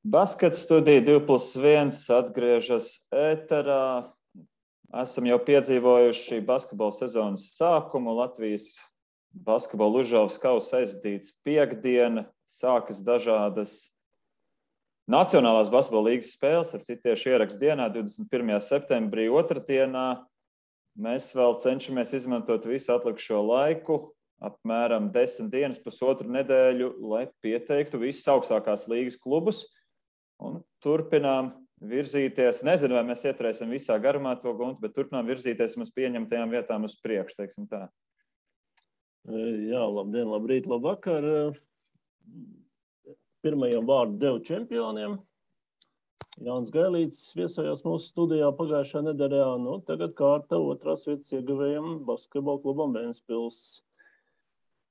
Baskets studija 2+1 atgriežas ēterā. Esam jau piedzīvojuši basketbola sezonas sākumu. Latvijas basketbola Užavas kausa aizdīts piekdiena. Sākas dažādas Nacionālās basketbola līgas spēles, ar citu tieši ierakstu dienā, 21. septembrī, otrdienā. Mēs vēl cenšamies izmantot visu atlikušo laiku, apmēram 10 dienas, pusotru nedēļu, lai pieteiktu visus augstākās līgas klubus. Un turpinām virzīties. Nezinu, vai mēs ieturēsim visā garumā to guntu, bet turpinām virzīties mums pieņemtajām vietām uz priekšu, teiksim tā. Jā, labdien, labrīt, labvakar. Pirmajam vārdu devu čempioniem. Jānis Gailīts viesojās mūsu studijā pagājušā nedēļā. Tagad kārta otrās vietas ieguvējam basketbola klubam Ventspils.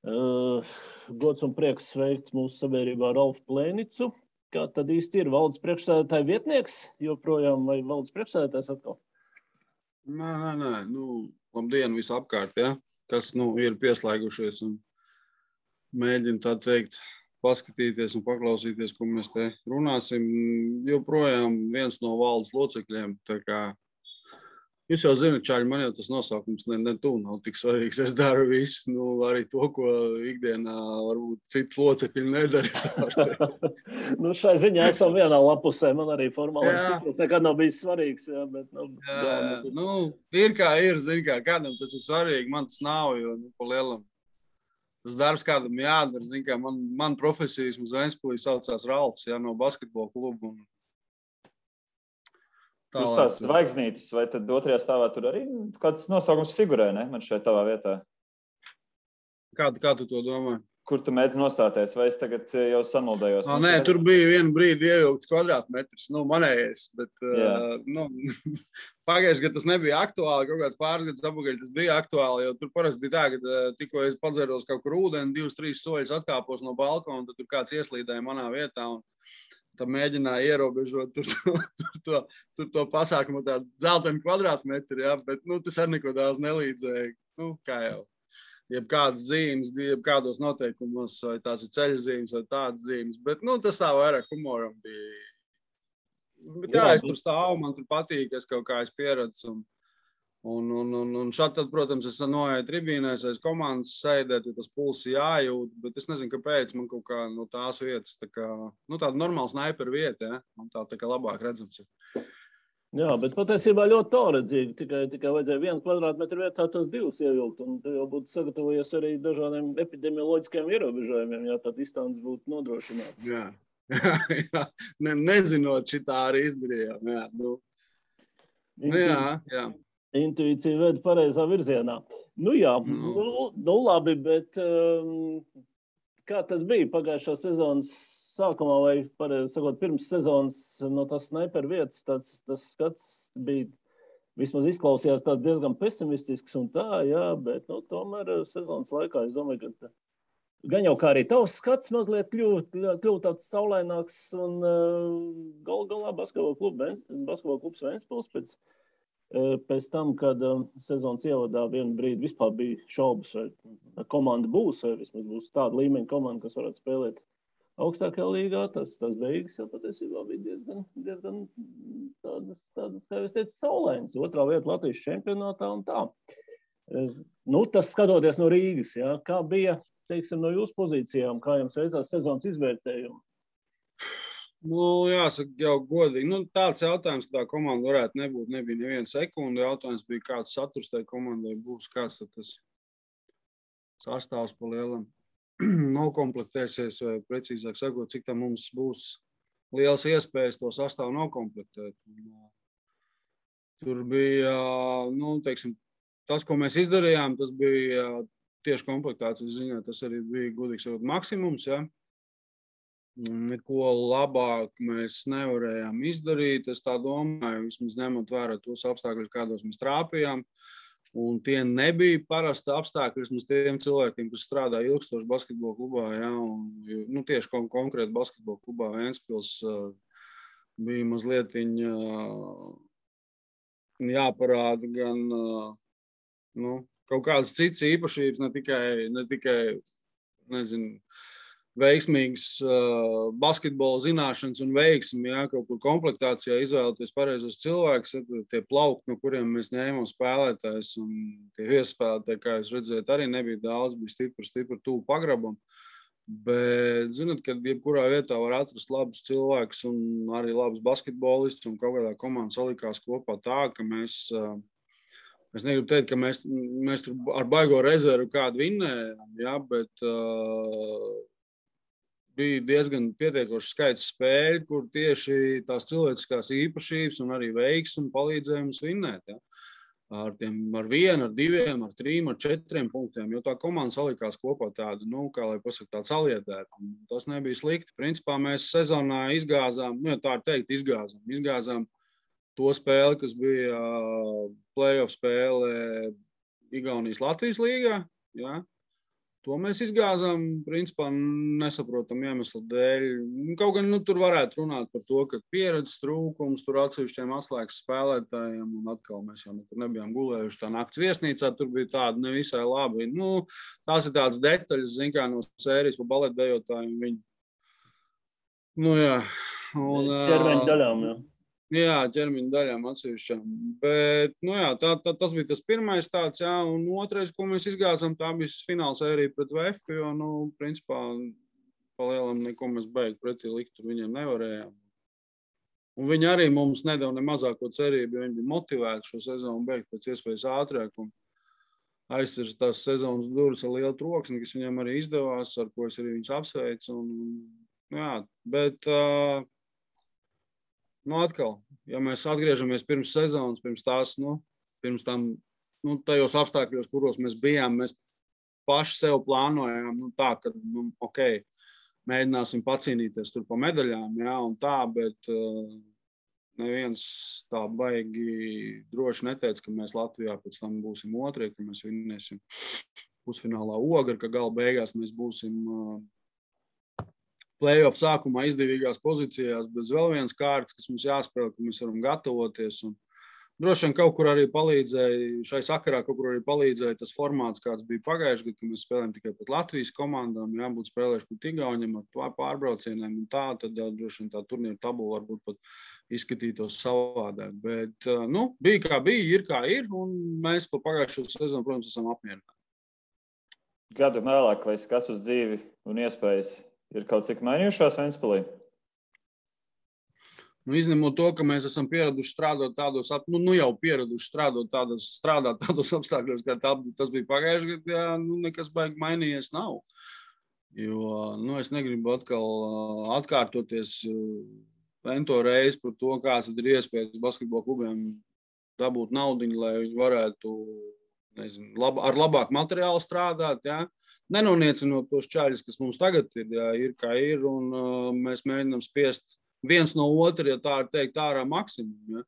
Gods un prieks sveikt mūsu sabiedrībā Ralfu Plēnicu. Kā tad īsti ir valdes priekšsēdētāja vietnieks joprojām vai valdes priekšsēdētājs atkal? Nē. Labdien visapkārt, ja? Kas ir pieslēgušies un mēģina tā teikt paskatīties un paklausīties, ko mēs te runāsim. Joprojām viens no valdes locekļiem, tā kā jūs jau zināt, čaļi, man jau tas nosaukums ne tuvu nav tik svarīgs. Es daru visu, arī to, ko ikdienā varbūt citu locekļi nedara. Šai ziņā esam vienā lapusē. Man arī formālais tituls nekad nav bijis svarīgs. Jā, bet, ir kā ir, zin kā, kādam tas ir svarīgi, man tas nav, jo pa lielam. Tas darbs kādam jādara, zin kā, man profesijas uz Ventspilī saucās Ralfs, no basketbola klubu. Jūs tās zvaigznītes, vai tad otrajā stāvā tur arī kāds nosaukums figurē, ne? Man šeit tavā vietā. Kā tu to domā? Kur tu mēdzi nostāties, vai es tagad jau samuldējos? Nē, tur bija vienu brīdi ievilkts kvadrātmetrs, manējais, bet pagājuši, ka tas nebija aktuāli, kaut kāds pāris gadus apakaļ tas bija aktuāli, jo tur parasti bija tā, ka tikko es padzēros kaut kur ūdeni, 2-3 soļus atkāpos no balkona, tad tur kāds ieslīdēja manā vietā un tad mēģināja ierobežot tur to pasākumu tādu dzeltenu kvadrātmetru, bet tas arī neko daudz nelīdzēja, kā jau. Jebkādas zīmes, jebkādos noteikumos, vai tās ir ceļa zīmes, vai tādas zīmes, bet tas tā vairāk humoram bija. Bet es tur stāvu, man tur patīk, es kaut kā pieredzu. Un šādi tad, protams, es noeju tribīnēs, aiz komandas sēdēt, jo tas pulsi jājūt, bet es nezinu, kāpēc man kaut kā no tās vietas, tāda normāla snaiperu vieta, man tā kā labāk redzams ir. Jā, bet patiesībā ļoti tālredzīgi. Tikai vajadzēja 1 kvadrātmetru vietā tos 2 ievilkt, un tu jau būtu sagatavojies arī dažādiem epidemioloģiskiem ierobežojumiem, ja tā distance būtu nodrošināta. Jā. Nezinot, šitā arī izdarījām. Jā. Intuīcija veda pareizā virzienā. Labi, bet kā tad bija pagājušā sezonas sākumā, vai, pareizi sakot, pirms sezonas no tās snaiperu vietas, tas skats bija, vismaz izklausījās tāds diezgan pesimistisks un tā, jā, bet, tomēr sezonas laikā, es domāju, ka gan jau kā arī tavs skats mazliet kļūt tāds saulaināks un galā basketbola klubs Ventspils pēc tam, kad sezonas ievadā vienu brīdi vispār bija šaubas, vai komanda būs, vai vismaz būs tāda līmeņa komanda, kas varētu spēlēt augstākajā līgā, tas beigas jau patiesībā bija diezgan tādas, kā es teicu, saulainas. Otrā vieta Latvijas čempionātā un tā. Tas skatoties no Rīgas, jā, kā bija, teiksim, no jūsu pozīcijām, kā jums veicās sezonas izvērtējumu? Jāsaka, jau godīgi. Tāds jautājums, kā tā komanda varētu nebūt, nebija neviena sekunda. Jautājums bija, kāds saturs tai komandai būs, kāds tas sastāvs pa lielam nokomplektēsies, vai precīzāk sakot, cik tam mums būs liels iespējas to sastāvu nokomplektēt. Tur bija, teiksim, tas, ko mēs izdarījām, tas bija tieši komplektācijas ziņā, tas arī bija, godīgi sakot, maksimums, ja. Neko labāk mēs nevarējām izdarīt, es tā domāju, vismaz ņemot vērā tos apstākļus, kādos mēs trāpījām. Un tie nebija parasti apstākļi vismaz tiem cilvēkiem, kas strādā ilgstoši basketbola klubā, ja, un tieši konkrēti basketbola klubā Ventspils bija mazliet jāparāda gan kaut kādas citas īpašības, ne tikai nezinu, veiksmīgas basketbola zināšanas un veiksmi, jā, kaut kur komplektācijā izvēlēties pareizos cilvēkus, tie plaukti, no kuriem mēs ņēmām spēlētājs, un tie iespēlētāji, kā jūs redzējat, arī nebija daudz, bija stipri tuvu pagrabam. Bet, zināt, kad jebkurā vietā var atrast labus cilvēkus un arī labus basketbolistus, un kaut kādā komanda salikās kopā tā, ka mēs negribu teikt, ka mēs tur ar baigo rezervu kādu vinnējām, jā, bet bija diezgan pietiekoši skaits spēļu, kur tieši tās cilvēciskās īpašības un arī veiksmi palīdzēja mums vinnēt. Ja? Ar 1, ar 2, ar 3, ar 4 punktiem, jo tā komanda salikās kopā tādu, kā lai pasaka, tādu saliedētu. Tas nebija slikti. Principā mēs sezonā izgāzām, tā ir teikt, izgāzām to spēli, kas bija play-off spēle Igaunijas Latvijas līgā. Ja? To mēs izgāzām, principā, nesaprotam iemeslu dēļ. Kaut gan tur varētu runāt par to, ka pieredzes trūkums tur atsevišķiem atslēgas spēlētājiem, un atkal mēs jau nekur nebijām gulējuši tā nakts viesnīcā, tur bija tāda nevisai labi. Tās ir tādas detaļas, zin kā no sērijas pa baletdejotājiem viņi. Jā. Ķermeņa daļām, jā. Jā, ķermeņa daļām atsevišķām. Bet, tas bija tas pirmais tāds, jā, un otrais, ko mēs izgāzām, tā bija fināla sērija pret VF, jo, principā, palielam neko mēs beigt pretī likt, tur viņiem nevarējām. Un viņi arī mums nedeva ne mazāko cerību, jo viņi bija motivēti šo sezonu beigt pēc iespējas ātrāk, un aizsirst tās sezonas durvis ar lielu troksni, kas viņiem arī izdevās, ar ko es arī viņus apsveicu, bet atkal, ja mēs atgriežamies pirms sezonas, pirms tam, tajos apstākļos, kuros mēs bijām, mēs paši sev plānojām, tā, ka, mēģināsim pacīnīties tur pa medaļām, jā, un tā, bet neviens tā baigi droši neteica, ka mēs Latvijā pēc tam būsim otrie, ka mēs vinnēsim pusfinālā Ogri, ka gala beigās mēs būsim play-off sākumā izdevīgās pozīcijās, bez vēl vienas kārtas, kas mums jāspēlē, ka mēs varam gatavoties. Un droši vien kaut kur arī palīdzēja, šai sakarā kaut kur arī palīdzēja tas formāts, kāds bija pagājuši gadu, ka mēs spēlējam tikai pret Latvijas komandām, jābūt spēlējuši pret Igauņiem ar pārbraucieniem un tā, tad droši vien tā turnīra tabula varbūt pat izskatītos savādāk. Bet, bija kā bija, ir kā ir, un mēs pa pagājušo sezonu, protams, esam apmierināti. Gadu vēlāk vai skats uz dzīvi un iespējas ir kaut cik mainījušās Ventspilī? Izņemot to, ka mēs esam pieraduši strādāt tādos, strādāt tādos apstākļos, kā tas bija pagājuši gadu, jā, nekas baigi mainījies nav. Jo, es negribu atkal atkārtoties ento reizi par to, kāds ir iespējas basketbola klubiem dabūt naudiņu, lai viņi varētu, ar labāku materiālu strādāt, jā. Nenoniecinot tos čaļus, kas mums tagad ir, jā, ir kā ir, un mēs mēģinām spiest viens no otra, ja tā ir teikt, ārā maksimumu. Ja?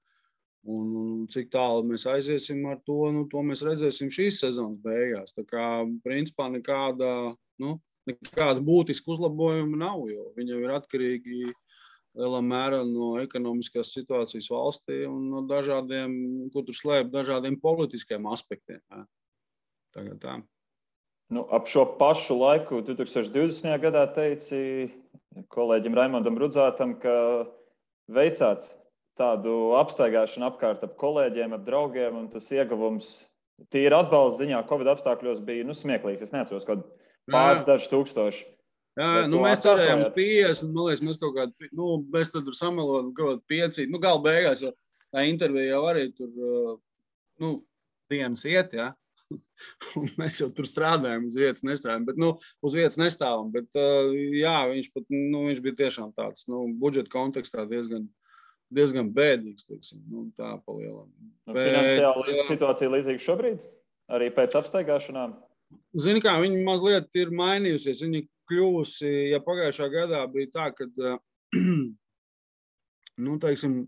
Un cik tālu mēs aiziesim ar to, to mēs redzēsim šīs sezonas beigās. Tā kā, principā, nekāda būtiska uzlabojuma nav, jo viņi jau ir atkarīgi lielā mērā no ekonomiskās situācijas valstī un no dažādiem, ko tur slēp, dažādiem politiskiem aspektiem. Ja? Tagad tā. Ap šo pašu laiku 2020. gadā teici kolēģim Raimondam Rudzātam, ka veicāt tādu apstaigāšanu apkārt ap kolēģiem, ap draugiem, un tas ieguvums tīri atbalsta ziņā Covid apstākļos bija smieklīgs. Es neatceros, kaut pāris daži tūkstoši. Jā, mēs cerējām uz 50, man liekas, mēs kaut kādi, mēs tad tur samelojam kaut kādi 5, gala beigās, jo tā intervija jau arī tur, dienas iet, jā. Un mēs jau tur strādājam, uz vietas nestrādājam, bet, uz vietas nestāvam, bet, jā, viņš bija tiešām tāds, budžeta kontekstā diezgan bēdīgs, teiksim, tā palielam. Finansiāli situācija līdzīga šobrīd, arī pēc apstaigāšanām? Zini kā, viņi mazliet ir mainījusies, viņi kļūsi, ja pagājušā gadā bija tā, ka, teiksim,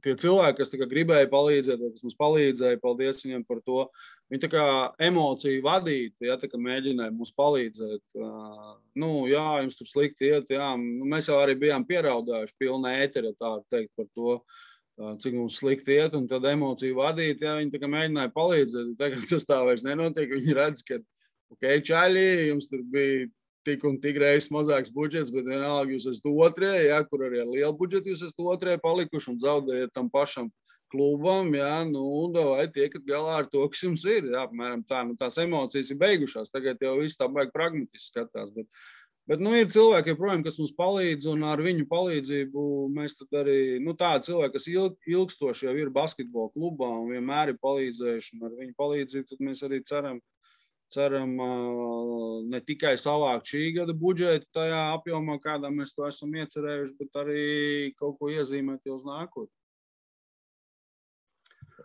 tie cilvēki, kas gribēja palīdzēt, vai kas mums palīdzēja, paldies viņiem par to. Viņi tā kā emociju vadīti, ja, tā kā mēģināja mums palīdzēt. Jā, jums tur slikti iet, jā. Mēs jau arī bijām pieraudājuši pilnā ētera, tā teikt, par to, cik mums slikti iet, un tad emociju vadīti, ja, viņi tā kā mēģināja palīdzēt. Tagad tas tā vairs nenotiek, viņi redz, ka, čaļi, jums tur bija tik un tik reizes mazāks budžets, bet vienalga jūs esat otrie, ja, kur arī ar lielu budžetu jūs esat otrie palikuši un zaudējat tam pašam klubam, ja, nu, vai tiekat galā ar to, kas jums ir, ja, apmēram tā, nu, tās emocijas ir beigušās, tagad jau viss tā baigi pragmatiski skatās, bet nu, ir cilvēki, joprojām, kas mums palīdz, un ar viņu palīdzību mēs tad arī, nu, tādi cilvēki, kas ilgstoši jau ir basketbola klubā un vienmēr ir palīdzējuši, un ar viņu palīdzību tad mēs arī ceram ne tikai savākt šī gada budžetu tajā apjomā, kādā mēs to esam iecerējuši, bet arī kaut ko iezīmēt jau uz nākotni.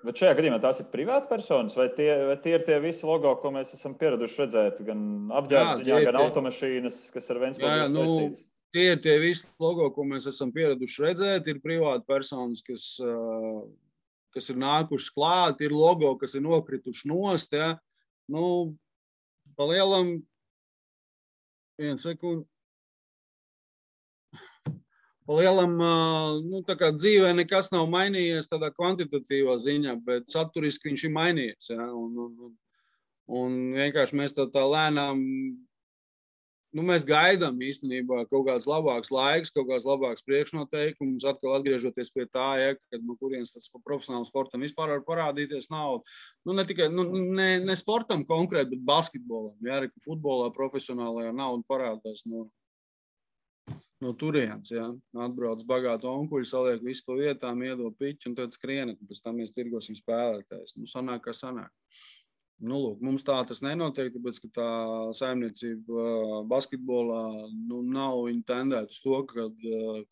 Bet šajā gadījumā tās ir privāti personas, vai tie ir tie visi logo, ko mēs esam pieraduši redzēt, gan apģērbziņā, gan automašīnas, kas ar Ventspili saistīts? Tie ir tie visi logo, ko mēs esam pieraduši redzēt, ir privāti personas, kas ir nākušas klāt, ir logo, kas ir nokrituši nost, ja. Nu, pa lielam, vienu sekundi. Pa lielam, nu, tā kā dzīvē nekas nav mainījies tādā kvantitatīvā ziņā, bet saturiski viņš ir mainījies, ja, un vienkārši mēs tā lēnām, nu, mēs gaidām īstenībā kaut kāds labāks laiks, kaut kāds labāks priekšnoteikums, atkal atgriežoties pie tā, ja, kad no kurienes tas profesionālam sportam vispār var parādīties naudu. Nu, ne tikai, ne sportam konkrēti, bet basketbolam, ja, ka futbolā profesionālajā nauda parādās no turienes, ja. Atbrauc bagātu onkuļu, saliek visu pa vietām, iedod piķi un tad skrienat, un pēc tam mēs tirgosim spēlētājs. Nu, sanāk, kā sanāk. Nu, lūk, mums tā tas nenotiek, tāpēc, ka tā saimniecība basketbolā, nu, nav viņa tendēt uz to, ka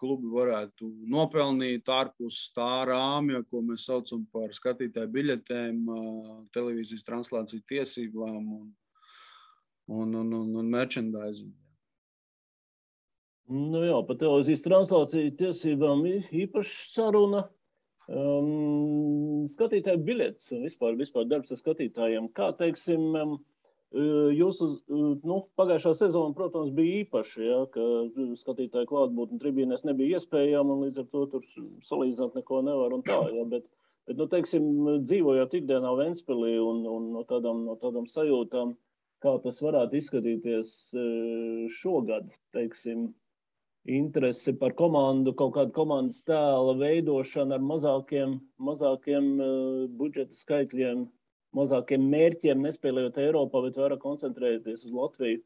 klubi varētu nopelnīt ārpus tā rāmja, ko mēs saucam par skatītāju biļetēm, televīzijas translāciju tiesībām un merchandising. Nu jā, par televīzijas translāciju tiesībām īpaši saruna. Skatītāju biļetes un vispār darbs ar skatītājiem. Kā, teiksim, jūsu, nu, pagājušā sezona, protams, bija īpaši, ja, ka skatītāju klātbūtne tribīnēs nebija iespējama un līdz ar to tur salīdzināt neko nevar un tā, ja, bet nu, teiksim, dzīvojot ikdienā Ventspilī un no tādām sajūtām, kā tas varētu izskatīties šogad, teiksim, interesi par komandu, kaut kādu komandas tēla veidošanu ar mazākiem budžeta skaitļiem, mazākiem mērķiem, nespēlējot Eiropā, bet vairāk koncentrēties uz Latviju.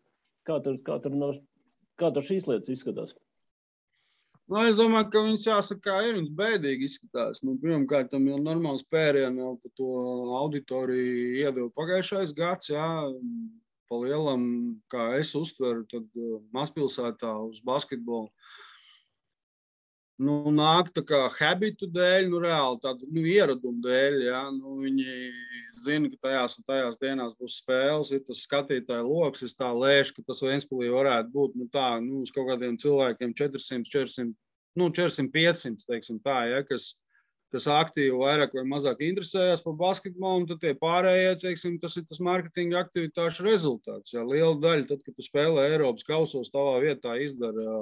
Kā tur šīs lietas izskatās? Nu, es domāju, ka viņas jāsaka, kā ir, viņas bēdīgi izskatās. Nu, pirmkārt, tam jau normāls pērienu jau par to auditoriju iedeva pagājušais gads, jā. Pa lielam, kā es uztveru, tad mazpilsētā uz basketbolu, nu, nāk tā kā habitu dēļ, nu, reāli tādu, nu, ieradumu dēļ, ja, nu, viņi zina, ka tajās un tajās dienās būs spēles, ir tas skatītāju loks, es tā lēšu, ka tas Ventspilī varētu būt, nu, tā, nu, uz kaut kādiem cilvēkiem 400, 500, teiksim tā, ja, kas aktīvi vairāk vai mazāk interesējās par basketbolu, un tad tie pārējie, teiksim, tas ir tas marketinga aktivitāšu rezultāts. Ja, liela daļa, tad, kad tu spēlē Eiropas kausos, tavā vietā izdara,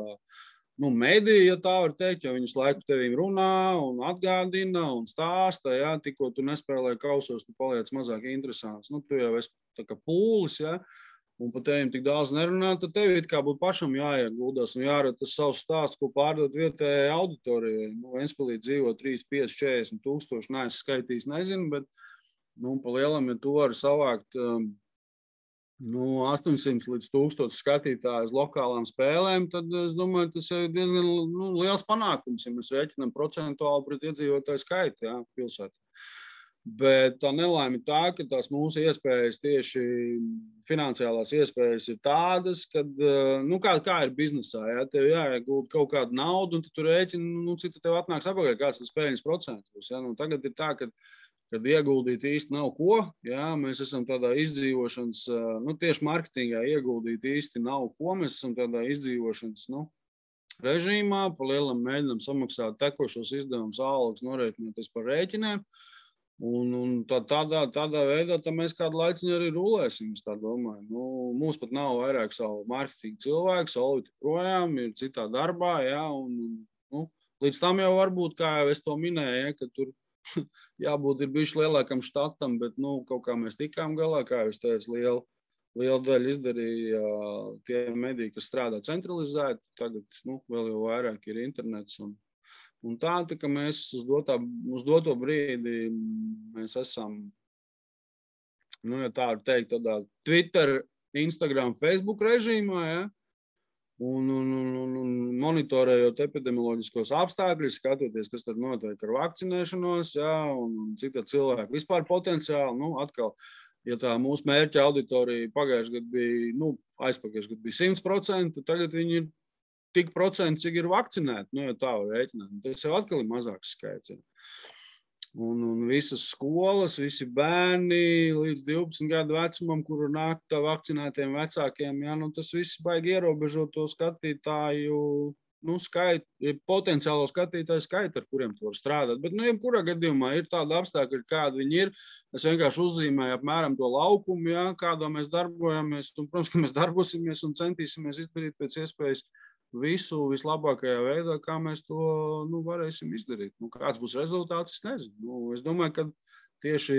nu, mediji, ja tā var teikt, jo viņus laiku tevīm runā un atgādina un stāsta, ja, tikko tu nespēlē kausos, tu paliec mazāk interesants. Nu, tu jau esi tā kā pūlis, ja, un par tevim tik daudz nerunā, tad tev it kā būtu pašam jāieguldās un jārada tas savs stāsts, ko pārdot vietējai auditorijai. Nu, Ventspilī dzīvo 3, 5, 40 tūkstoši, neesmu skaitījis, nezinu, bet, nu, pa lielam, ja tu vari savākt, nu, 800 līdz 1000 skatītāju uz lokālām spēlēm, tad es domāju, tas ir diezgan, nu, liels panākums, ja mēs rēķinām procentuāli pret iedzīvotāju skaitu, jā, pilsētā. Bet tā nelaime ir tā, ka tās mūsu iespējas, tieši finansiālās iespējas ir tādas, kad, nu, kā ir biznesā, ja, tev jāiegulda kaut kādu naudu, un tu rēķini, nu, cik tev atnāks apakaļ, kāds tas peļņas procents būs. Ja. Nu, tagad ir tā, kad ieguldīt īsti nav ko, ja, mēs esam tādā izdzīvošanas, nu, tieši marketingā ieguldīt īsti nav ko, mēs esam tādā izdzīvošanas, nu, režīmā, pa lielam mēģinām samaksāt tekošos izdevumus, algas, norēķinoties par rēķiniem. Un tādā veidā mēs kādu laiciņu arī rulēsim, es tā domāju. Nu, mums pat nav vairāk savu marketingu cilvēku, Solvita projām ir citā darbā, ja, un nu, līdz tam jau varbūt, kā jau es to minēju, ja, ka tur jābūt ir bijuši lielākam štatam, bet, nu, kaut kā mēs tikām galā, kā jau es teicu, liela daļa izdarīja tie mediji, kas strādā centralizēti. Tagad vēl jau vairāk ir internets. Un tā ka mēs uz doto brīdi mēs esam, ja tā var teikt, tādā Twitter, Instagram, Facebook režīmā, ja? Un monitorējot epidemioloģiskos apstākļus, skatoties, kas tad notiek ar vakcinēšanos, ja? Un cik tad cilvēki vispār potenciāli, atkal, ja tā mūsu mērķa auditorija pagājušajā gadā bija, aizpagājušajā gadā bija 100%, tagad viņi ir tik procenti, cik ir vakcinēti, ja tā var rēķināt. Tas jau atkal ir mazāks skaits. Ja. Un visas skolas, visi bērni līdz 12 gadu vecumam, kuru nāk tā vakcinētiem vecākiem, ja, tas viss baigi ierobežo to skatītāju, skaitu, potenciālo skatītāju skaitu, ar kuriem tu var strādāt. Bet, jebkurā gadījumā ir tāda apstākļa, kāda viņi ir. Es vienkārši uzzīmēju apmēram to laukumu, ja, kādā mēs darbojamies. Un, protams, ka mēs darbosimies un centīsimies izdarīt pēc iespējas visu vislabākajā veidā, kā mēs to varēsim izdarīt. Kāds būs rezultāts, es nezinu. Es domāju, ka tieši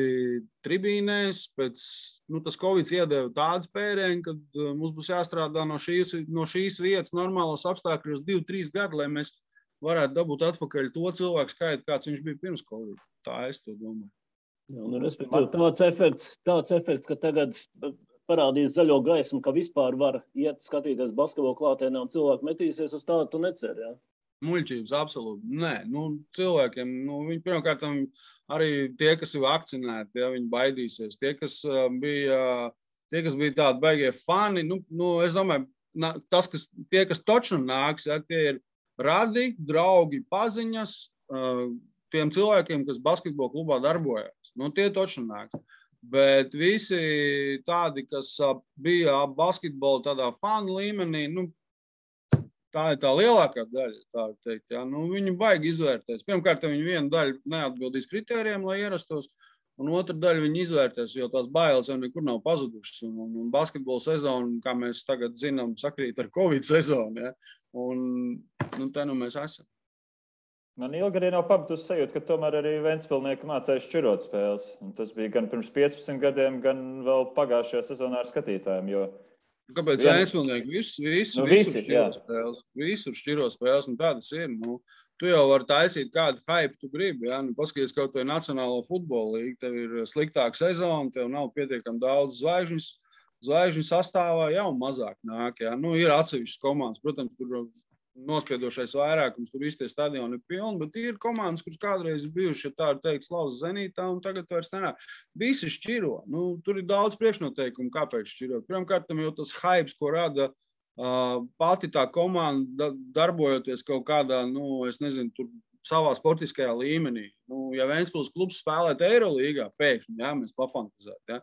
tribīnēs tas Covid iedeva tādu spērienu, ka mums būs jāstrādā no šīs vietas normālos apstākļos 2-3 gadi, lai mēs varētu dabūt atpakaļ to cilvēku skaitu, kāds viņš bija pirms Covid. Tā es to domāju. Jā, respektīvi, tāds efekts, ka tagad parādīs zaļo gaismu, ka vispār var iet skatīties basketbolu klātienē un cilvēki metīsies uz tādu, tu neceri, jā? Muļķības, absolūti. Nē, cilvēkiem, viņi pirmkārt arī tie, kas ir vakcinēti, ja, viņi baidīsies. Tie, kas bija tādi baigie fani, es domāju, tie, kas točnu nāks, ja, tie ir radi, draugi, paziņas, tiem cilvēkiem, kas basketbola klubā darbojas. Tie točnu nāks. Bet visi tādi, kas bija basketbola tādā fanu līmenī, tā ir tā lielākā daļa, tā var teikt. Ja? Viņi baigi izvērtēs. Pirmkārt, viņi vienu daļu neatbildīs kritērijiem, lai ierastos, un otru daļu viņi izvērtēs, jo tās bailes jau nekur nav pazudušas. Un basketbola sezona, kā mēs tagad zinām, sakrīt ar Covid sezonu. Ja? Un te mēs esam. Man ilgi arī nav pabeigusi sajūta, ka tomēr arī Ventspilnieki mācēja šķirot spēles. Un tas bija gan pirms 15 gadiem, gan vēl pagājušajā sezonā ar skatītājiem. Kāpēc Ventspilnieki? Visur šķiro spēles. Visur šķiro spēles, un tādas ir. Tu jau vari taisīt kādu hype tu gribi. Ja? Paskaties kaut vai Nacionālo futbola līgu, tev ir sliktāka sezona, tev nav pietiekami daudz zvaigžņu sastāvā, jau mazāk nāk. Ja? Ir atsevišķas komandas, protams, tur nospiedošais vairākums, tur visi tie stadioni ir pilni, bet ir komandas, kuras kādreiz ir bijuši, ja tā ir teikt, Slavas Zenītā, un tagad vairs nenāk. Visi šķiro. Tur ir daudz priekšnoteikumu, kāpēc šķirot. Pirmkārt, jau tas hypes, ko rada pati tā komanda, darbojoties kaut kādā, es nezinu, tur savā sportiskajā līmenī. Ja Ventspils klubs spēlēt Eirolīgā, pēkšņi, ja, mēs pafantazētu, ja,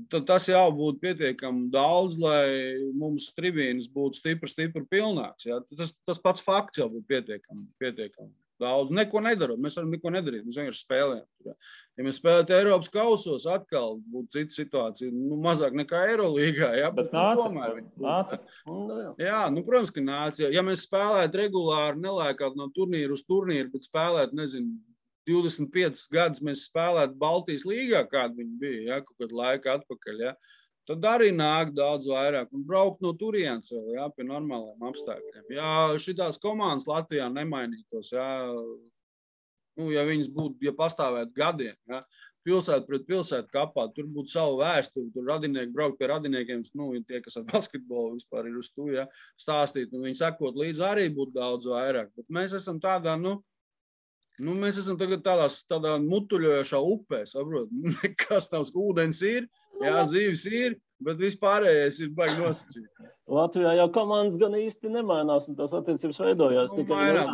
tad tas jau būtu pietiekami daudz, lai mums tribīnes būtu stipri pilnāks. Ja? Tas pats fakts jau būtu pietiekami daudz. Neko nedarot. Mēs varam neko nedarīt. Mēs vienkārši spēlējam. Ja, ja mēs spēlētu Eiropas kausos, atkal būtu cita situācija. Mazāk nekā Eirolīgā. Ja? Bet nāca. Jā, protams, ka nāca. Ja mēs spēlētu regulāri, nelēkāt no turnīra uz turnīru, bet spēlētu, nezinu, 25 gadus mēs spēlētu Baltijas līgā, kāda viņa bija, ja, kaut kādu laiku atpakaļ, ja, tad arī nāk daudz vairāk un braukt no turienes vēl, ja, pie normāliem apstākļiem. Ja šitās komandas Latvijā nemainītos, ja, ja viņas būtu, ja pastāvētu gadiem, ja, pilsētu pret pilsētu kapā, tur būtu savu vēsturi, tur radinieki braukt pie radiniekiem, tie, kas ar basketbolu vispār ir uz to, ja, stāstīt, un viņi sekot līdz arī būtu daudz vairāk. Bet mēs esam tādā, mēs esam tagad tādā mutuļojošā upē, saprot? Nekas nav, ūdens ir, jā, zīves ir, bet vispārējais ir baigi nosacīt. Latvijā jau komandas gan īsti nemainās, un tās attiecības veidojās. Mainās,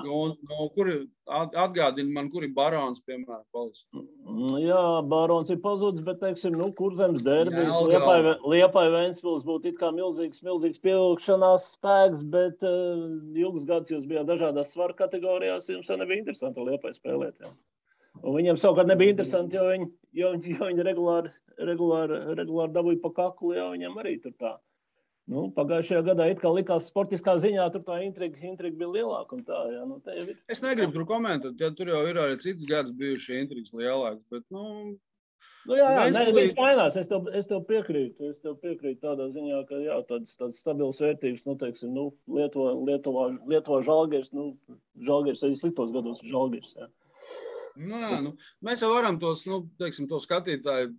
atgādina man, kur ir Barons, piemēram, palicis. Jā, Barons ir pazudis, bet, teiksim, Kurzemes derbijas, Liepai Ventspils būtu it kā milzīgs pievilkšanās spēks, bet ilgus gadus jūs bijāt dažādās svaru kategorijās, jums jau nebija interesanti Liepai spēlēt, jā. Un viņiem savukārt nebija interesanti, jo viņi regulāri dabūja pa kaklu, jo viņiem arī tur tā. Pagājušajā gadā it kā likās sportiskā ziņā, tur tā intriga bija lielāka un tā, jā. Tā jau ir. Es negribu tur komentēt, ja tur jau ir arī cits gads bijuši intrigas lielāks, bet, viņš mainās. Es tev piekrītu. Tādā ziņā, ka jā, tādas stabilas vērtības, teiksim, Lietuvā Žalgiris, Žalgiris arī sliktos gados Žalgiris, jā. Mēs jau varam tos, teiksim, to skatītāju,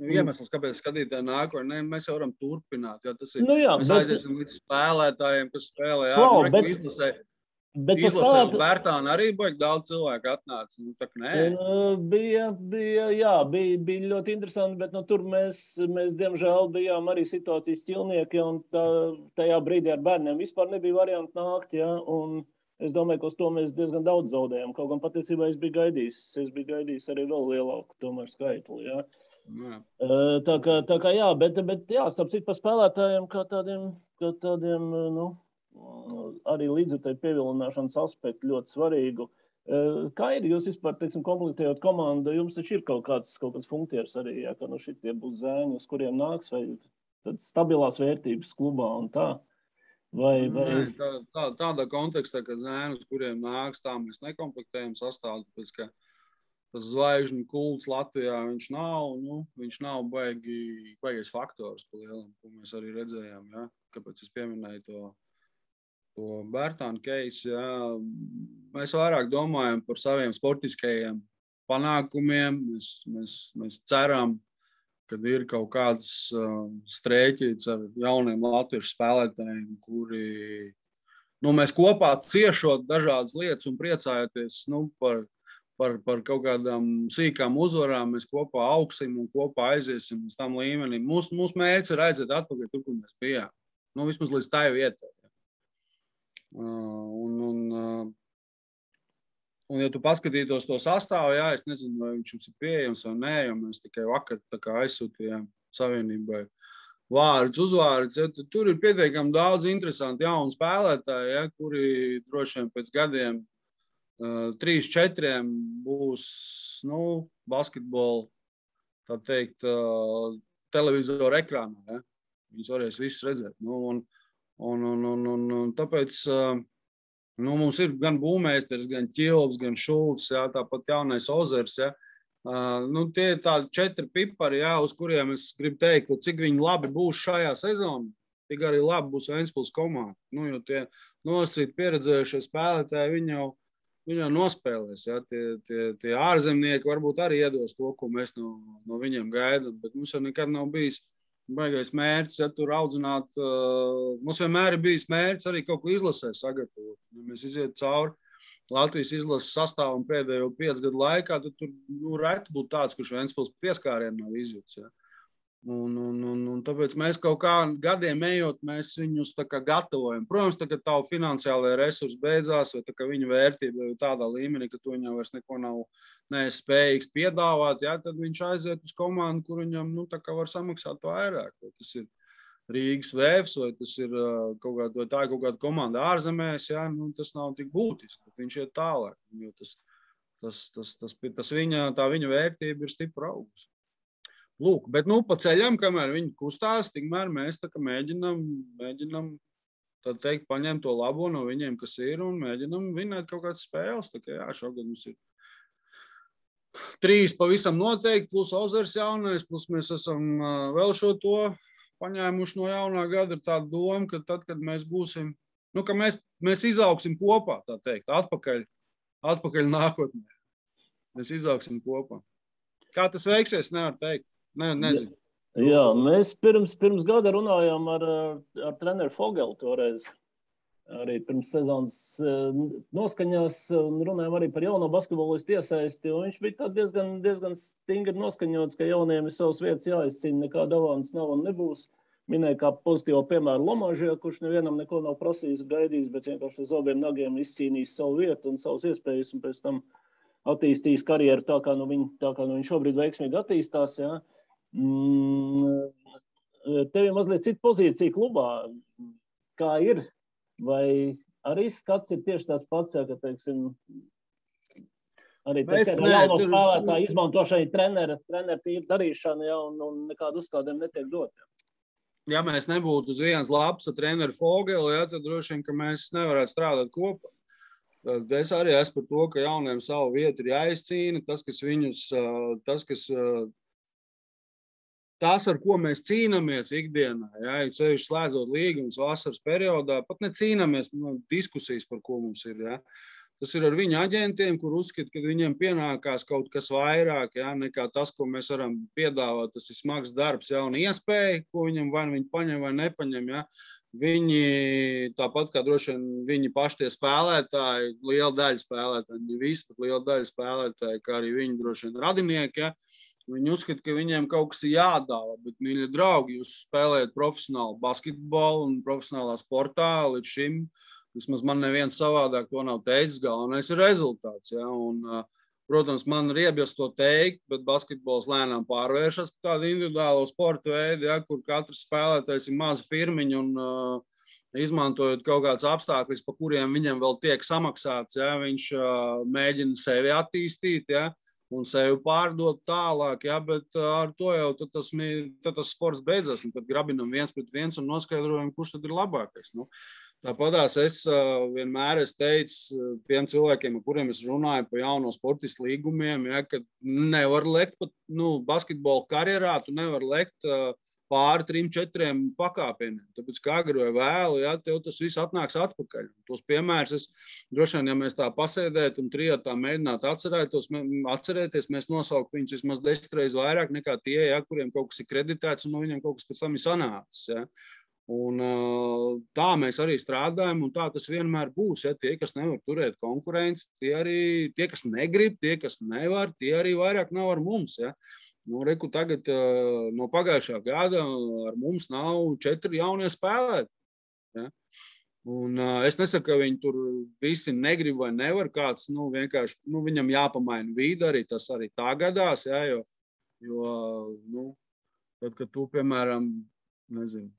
iemesls, kāpēc skatītāji nāk, vai ne, mēs jau varam turpināt, jo tas ir, mēs aiziesim līdz spēlētājiem, kas spēlē, Izlasē uz Bērtānu arī baigi daudz cilvēku atnāca. Tā kā nē. Bija ļoti interesanti, bet tur mēs diemžēl bijām arī situācijas ķilnieki, un tajā brīdī ar bērniem vispār nebija varianti nākt, ja, un es domāju, ka uz to mēs diezgan daudz zaudējām. Kaut gan patiesībā es biju gaidījis arī vēl lielāku tomēr skaitli, ja. Tā kā jā, bet jā, starp citu par spēlētājiem kā tādiem, arī līdzjutēju pievilināšanas aspektu ļoti svarīgu. Kā ir jūs vispār, teiksim, komplektējot komandu, jums taču ir kaut kāds funkcijas arī, ja, ka šitie būs zēni, uz kuriem nāks, vai tādas stabilās vērtības klubā un tā? Vai... Tādā kontekstā, ka zēni, uz kuriem nāks, tā mēs nekomplektējam sastāvu, tāpēc, ka tas zvaigžņu kults Latvijā, viņš nav baigais faktors pa lielam, ko mēs arī redzējām, ja? Kāpēc es pieminēju to Bērtānu case, jā. Mēs vairāk domājam par saviem sportiskajiem panākumiem. Mēs ceram, ka ir kaut kāds strēķīts ar jauniem latviešu spēlētājiem, kuri, mēs kopā ciešot dažādas lietas un priecājoties, par kaut kādām sīkām uzvarām, mēs kopā augsim un kopā aiziesim uz tam līmenim. Mūsu mērķis ir aiziet atpakaļ tur, kur mēs bijām. Vismaz līdz tai vietai. Un ja tu paskatītos to sastāvu, jā, es nezinu, vai viņš jums ir pieejams vai nē, jo mēs tikai vakar aizsūtījām Savienībai uzvārdus. Ja, tur ir pietiekami daudz interesanti jaunu spēlētāji, ja, kuri droši vien pēc gadiem 3-4 būs basketbolu, tā teikt, televizoru ekrānā. Ja. Viņus varēs visus redzēt. Un tāpēc mums ir gan būmēsters, gan Ķilvs, gan Šulcs, jā, tāpat jaunais Ozers. Jā. Tie ir tādi 4 pipari, jā, uz kuriem es gribu teikt, cik viņi labi būs šajā sezonā, tik arī labi būs Ventspils komanda. Jo tie nosacīti pieredzējušie spēlētāji, viņi jau nospēlēs. Jā. Tie ārzemnieki varbūt arī iedos to, ko mēs no viņiem gaidām, bet mums jau nekad nav bijis baigais mērķis, ja tur audzināt, mums vienmēr ir bijis mērķis arī kaut ko izlasē sagatavot. Ja mēs iziet cauri Latvijas izlases sastāvam pēdējo 5 gadu laikā, tad tur reti būtu tāds, kurš Ventspils pieskārienu nav izjūts. Ja. Un tāpēc mēs kaut kā gadiem ejot, mēs viņus tā kā gatavojam. Protams, tā, ka tavu finansiālajie resursi beidzās, vai tā, ka viņa vērtība ir tādā līmenī, ka tu viņam vairs neko nav spējīgs piedāvāt, ja, tad viņš aiziet uz komandu, kur viņam tā kā var samaksāt vairāk. Vai tas ir Rīgas Vēvs, vai tas ir kaut kāda komanda ārzemēs, ja, tas nav tik būtiski. Viņš iet tālāk, jo tā viņa vērtība ir stipra augus. Lūk, bet pa ceļam, kamēr viņi kustās, tikmēr mēs tā kā mēģinam tā teikt, paņemt to labo no viņiem, kas ir, un mēģinam vinēt kaut kādas spēles. Tā kā jā, šogad mums ir 3 pavisam noteikti, plus Ozers jaunais, plus mēs esam vēl šo to paņēmuši no jaunā gada. Ir tāda doma, ka tad, kad mēs būsim, ka mēs izaugsim kopā, tā teikt, atpakaļ nākotnē. Mēs izaugsim kopā. Kā tas veiksies, nevar teikt. Nezinu. Jā, mēs pirms gada runājām ar treneru Fogelu toreiz. Arī pirms sezonas noskaņās runājām arī par jauno basketbolistu iesaisti. Viņš bija diezgan stingri noskaņots, ka jauniem ir savas vietas jāizcīna, nekā davāns nav un nebūs. Minēja kā pozitīvo piemēru Lomažie, kurš nevienam neko nav prasījis, gaidījis, bet vienkārši ar saviem nagiem izcīnījis savu vietu un savas iespējas un pēc tam attīstījis karjeru tā, kā viņš šobrīd veiksmīgi attīstās. Ja. Tev ir mazliet cita pozīcija klubā. Kā ir? Vai arī skats ir tieši tās pats, ja, ka, teiksim, arī tas jauno spēlētāju izmantošana trenera darīšana, ja, un nekādu uzstādēm netiek dot. Ja mēs nebūtu uz vienas lapas ar treneru Fogelu, ja, tad droši vien, ka mēs nevarētu strādāt kopā. Es arī esmu par to, ka jauniem savu vietu ir jāizcīna. Tas, ar ko mēs cīnāmies ikdienā, ja sevišķi slēdzot līgumus vasaras periodā, pat necīnāmies, diskusijas, par ko mums ir. Ja. Tas ir ar viņu aģentiem, kur uzskata, ka viņiem pienākās kaut kas vairāk, ja, nekā tas, ko mēs varam piedāvāt. Tas ir smags darbs, jauna iespēja, ko viņam vai viņi paņem vai nepaņem. Ja. Viņi, tāpat kā droši vien viņi paši tie spēlētāji, liela daļa spēlētāji, ne visi, bet liela daļa spēlētāji, kā arī viņi droši vien radinieki, ja, viņi uzskata, ka viņiem kaut kas ir jādāvā, bet, mīļie draugi, jūs spēlējat profesionālu basketbolu un profesionālā sportā līdz šim, vismaz man neviens savādāk to nav teicis, galvenais ir rezultāts, ja, un, protams, man ir iebies to teikt, bet basketbols lēnām pārvēršas par tādu individuālo sporta veidu, ja, kur katrs spēlētājs ir maza firmiņa un izmantojot kaut kāds apstākļus, pa kuriem viņam vēl tiek samaksāts, ja, viņš mēģina sevi attīstīt, ja, un sevi pārdot tālāk, ja, bet ar to jau tad tas sports beidzas, un tad grabinam 1-1 un noskaidrojam, kurš tad ir labākais. Nu. Tāpatās es vienmēr teicu tiem cilvēkiem, ar kuriem es runāju par jauno sportistu līgumiem, ja, ka nevar lekt pat basketbola karjerā, tu nevar lekt pāri 3-4 pakāpieniem. Tāpēc, kā agri vai vēlu, ja, tev tas viss atnāks atpakaļ. Tos piemērus droši vien, ja mēs tā pasēdētu un trijotā mēģinātu atcerēties, mēs nosaukt viņus vismaz 10 reizes vairāk nekā tie, ja, kuriem kaut kas ir kreditēts un no viņiem kaut kas pēc tam ir sanācis. Ja. Un tā mēs arī strādājam, un tā tas vienmēr būs. Ja? Tie, kas nevar turēt konkurenci, tie, kas negrib, tie, kas nevar, tie arī vairāk nav ar mums. Ja? Reku tagad no pagājušā gada ar mums nav 4 jaunie spēlētāji. Ja? Un es nesaku, ka viņi tur visi negrib vai nevar, kāds vienkārši viņam jāpamaina vide, arī tas arī tā gadās, ja? Jo tad, kad tu, piemēram, nezinu,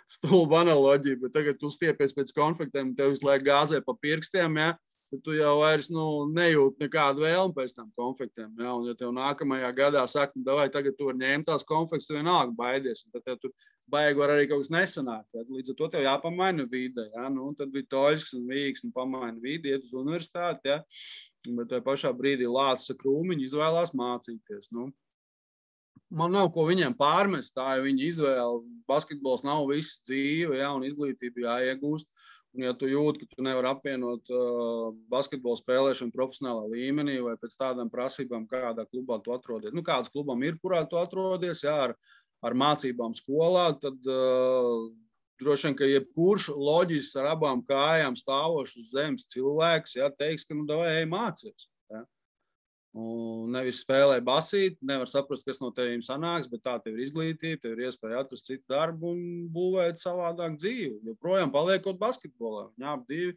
stulba analoģija, bet tagad tu stiepies pēc konfliktiem un tev visu laiku gāzē pa pirkstiem, ja, tad tu jau vairs nejūt nekādu vēlmu pēc tam konfliktiem. Ja, un ja tev nākamajā gadā saka, davai, tagad tu var ņemt tās konflikts, tu vienalga baidies, un tad tev tur baigi var arī kaut kas nesanākt. Ja, līdz ar to tev jāpamaina vide. Ja, tad Vitoļsks un Vīgs pamaina vidi, iet uz universitāti, ja, bet tajā pašā brīdī lāca krūmiņi izvēlās mācīties. Man nav ko viņiem pārmest, tā ir viņa izvēle. Basketbols nav viss dzīve, ja, un izglītība jāiegūst. Un ja tu jūti, ka tu nevar apvienot basketbolu spēlēšanu profesionālā līmenī vai pēc tādām prasībām, kādā klubā tu atrodies. Kāds klubam ir, kurā tu atrodies, ja, ar mācībām skolā, tad droši vien, ka jebkurš loģisks ar abām kājām stāvošs uz zemes cilvēks, ja, teiks, ka davai ej mācies. Ja. Un nevis spēlē basīt, nevar saprast, kas no tevīm sanāks, bet tā tev ir izglītība, tev ir iespēja atrast citu darbu un būvēt savādāk dzīvi. Joprojām paliekot basketbolā. Viņi abi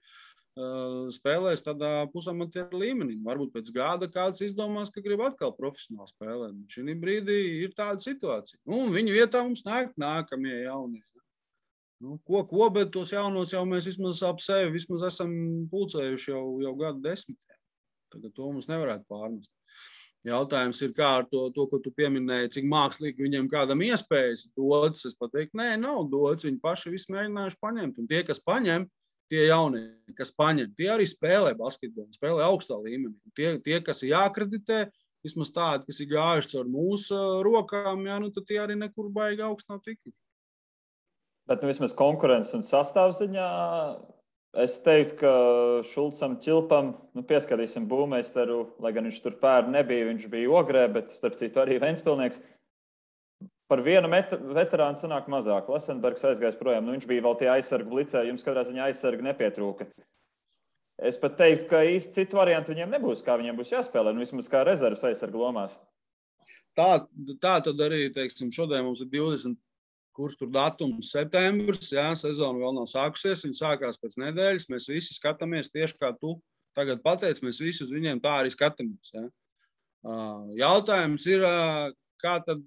spēlēs tādā pusamatieru līmenī. Varbūt pēc gada kāds izdomās, ka grib atkal profesionāli spēlēt. Šī brīdī ir tāda situācija. Un viņu vietā mums nākamie jaunie. Ko, bet tos jaunos jau mēs vismaz ap sevi vismaz esam pulcējuši jau gadu 10. Tagad to mums nevarētu pārmest. Jautājums ir, kā ar to, ko tu pieminēji, cik mākslīgi viņiem kādam iespējas dots. Es pateiktu, nē, nav dots. Viņi paši visu mēģinājuši paņemt. Un tie, kas paņem, tie jaunie, kas paņem, tie arī spēlē basketbolu, spēlē augstā līmenī. Tie, kas ir jāakreditē, vismaz tādi, kas ir gājuši caur mūsu rokām, jā, tad tie arī nekur baigi augstu nav tikuši. Bet vismaz konkurences un sastāvziņā es teiktu, ka Šulcam Čilpam, pieskatīsim būvmeistaru, lai gan viņš tur pērn nebija, viņš bija Ogrē, bet starp citu arī Ventspilnieks. Par vienu veterānu sanāk mazāk. Lesenbergs aizgājis projām, viņš bija vēl tie aizsargu blicē, jums katrā ziņā aizsargi nepietrūka. Es pat teiktu, ka īsti citu variantu viņiem nebūs, kā viņiem būs jāspēlē, vismaz kā rezerves aizsargu lomās. Tā tad arī, teiksim, šodien mums ir 20. Kurš tur datums septembris, jā, sezona vēl nav sākusies, viņa sākās pēc nedēļas, mēs visi skatāmies tieši kā tu tagad pateici, mēs visi uz viņiem tā arī skatāmies. Jā. Jautājums ir, kā tad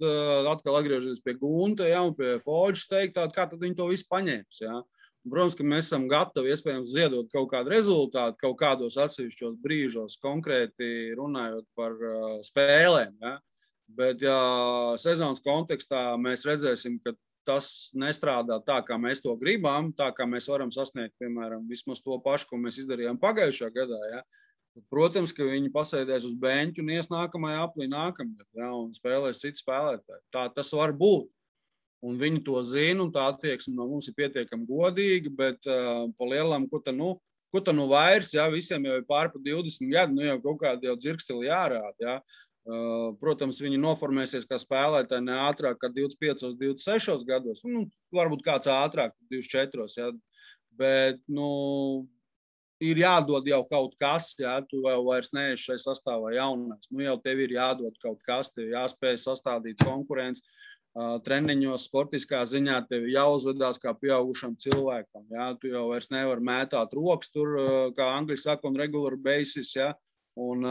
atkal atgriežamies pie Gunta, jā, un pie Foģis teikt, kā tad viņi to visu paņēms, jā. Protams, ka mēs esam gatavi iespējams ziedot kaut kādu rezultātu, kaut kādos atsevišķos brīžos, konkrēti runājot par spēlēm, jā. Bet, ja sezonas kontekstā mēs redzēsim, ka tas nestrādā tā, kā mēs to gribam, tā kā mēs varam sasniegt, piemēram, vismaz to pašu, ko mēs izdarījām pagājušā gadā. Ja? Protams, ka viņi pasēdēs uz beņķu un ies nākamajā aplī nākamgad, ja? Un spēlēs citu spēlētāju. Tā tas var būt. Un viņi to zina, un tā attieksme no mums ir pietiekami godīga, bet pa lielam, ko ta vairs, ja? Visiem jau ir pārpa 20 gadu, jau kaut kādi jau dzirkstili jārāda, ja? Protams, viņi noformēsies kā spēlētāji ne ātrāk kā 25, 26 gados, varbūt kāds ātrāk 24, ja? Bet, ir jādod jau kaut kas, ja? Tu jau vairs neesi šai sastāvā jaunais, jau tev ir jādod kaut kas, tev jāspēj sastādīt konkurenci, treniņos, sportiskā ziņā tev jāuzvedās kā pieaugušam cilvēkam, ja? Tu jau vairs nevari mētāt rokas tur, kā angļi saka, on regular basis, ja? Un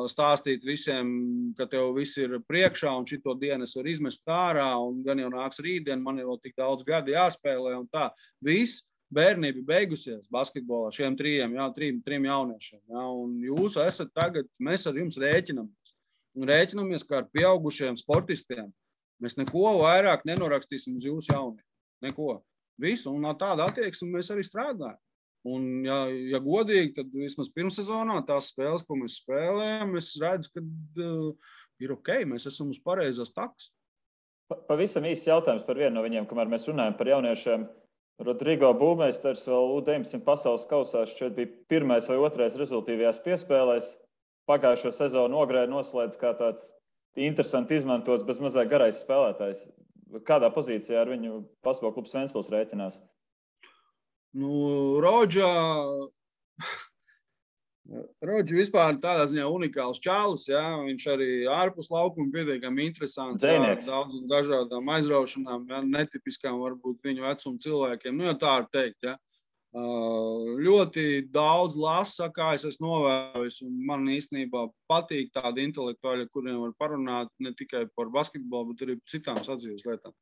stāstīt visiem, ka tev viss ir priekšā un šito dienu es varu izmest ārā un gan jau nāks rītdien, man ir vēl tik daudz gadi jāspēlē un tā. Viss bērnība beigusies basketbolā šiem trim jauniešiem. Ja? Un jūs esat tagad, mēs ar jums rēķinamies. Un rēķinamies kā ar pieaugušiem sportistiem. Mēs neko vairāk nenorakstīsim uz jūsu jauniem. Neko. Visu. Un tāda attieksme mēs arī strādājam. Un, ja godīgi, tad vismaz pirmssezonā tās spēles, ko mēs spēlējam, es redzu, ka ir ok, mēs esam uz pareizās takas. Pavisam īsts jautājums par vienu no viņiem, kamēr mēs runājam par jauniešiem. Rodrigo Būmeisters vēl U19 pasaules kausā šķiet bija pirmais vai otrais rezultīvajās piespēlēs. Pagājušo sezonu Ogrē noslēdz kā tāds interesanti izmantots, bez mazāk garais spēlētājs. Kādā pozīcijā ar viņu basketbola klubs Ventspils rēķinās? Rodži vispār tādā ziņā unikāls čālis, ja? Viņš arī ārpus laukuma pietiekami interesants, daudz un dažādām aizraušanām, ja? Netipiskām varbūt viņu vecumu cilvēkiem, jau tā var teikt, ja? Ļoti daudz lasa, kā es esmu novērojis, un man īstenībā patīk tādi intelektuāļi, kuriem var parunāt ne tikai par basketbolu, bet arī par citām sadzīves lietām.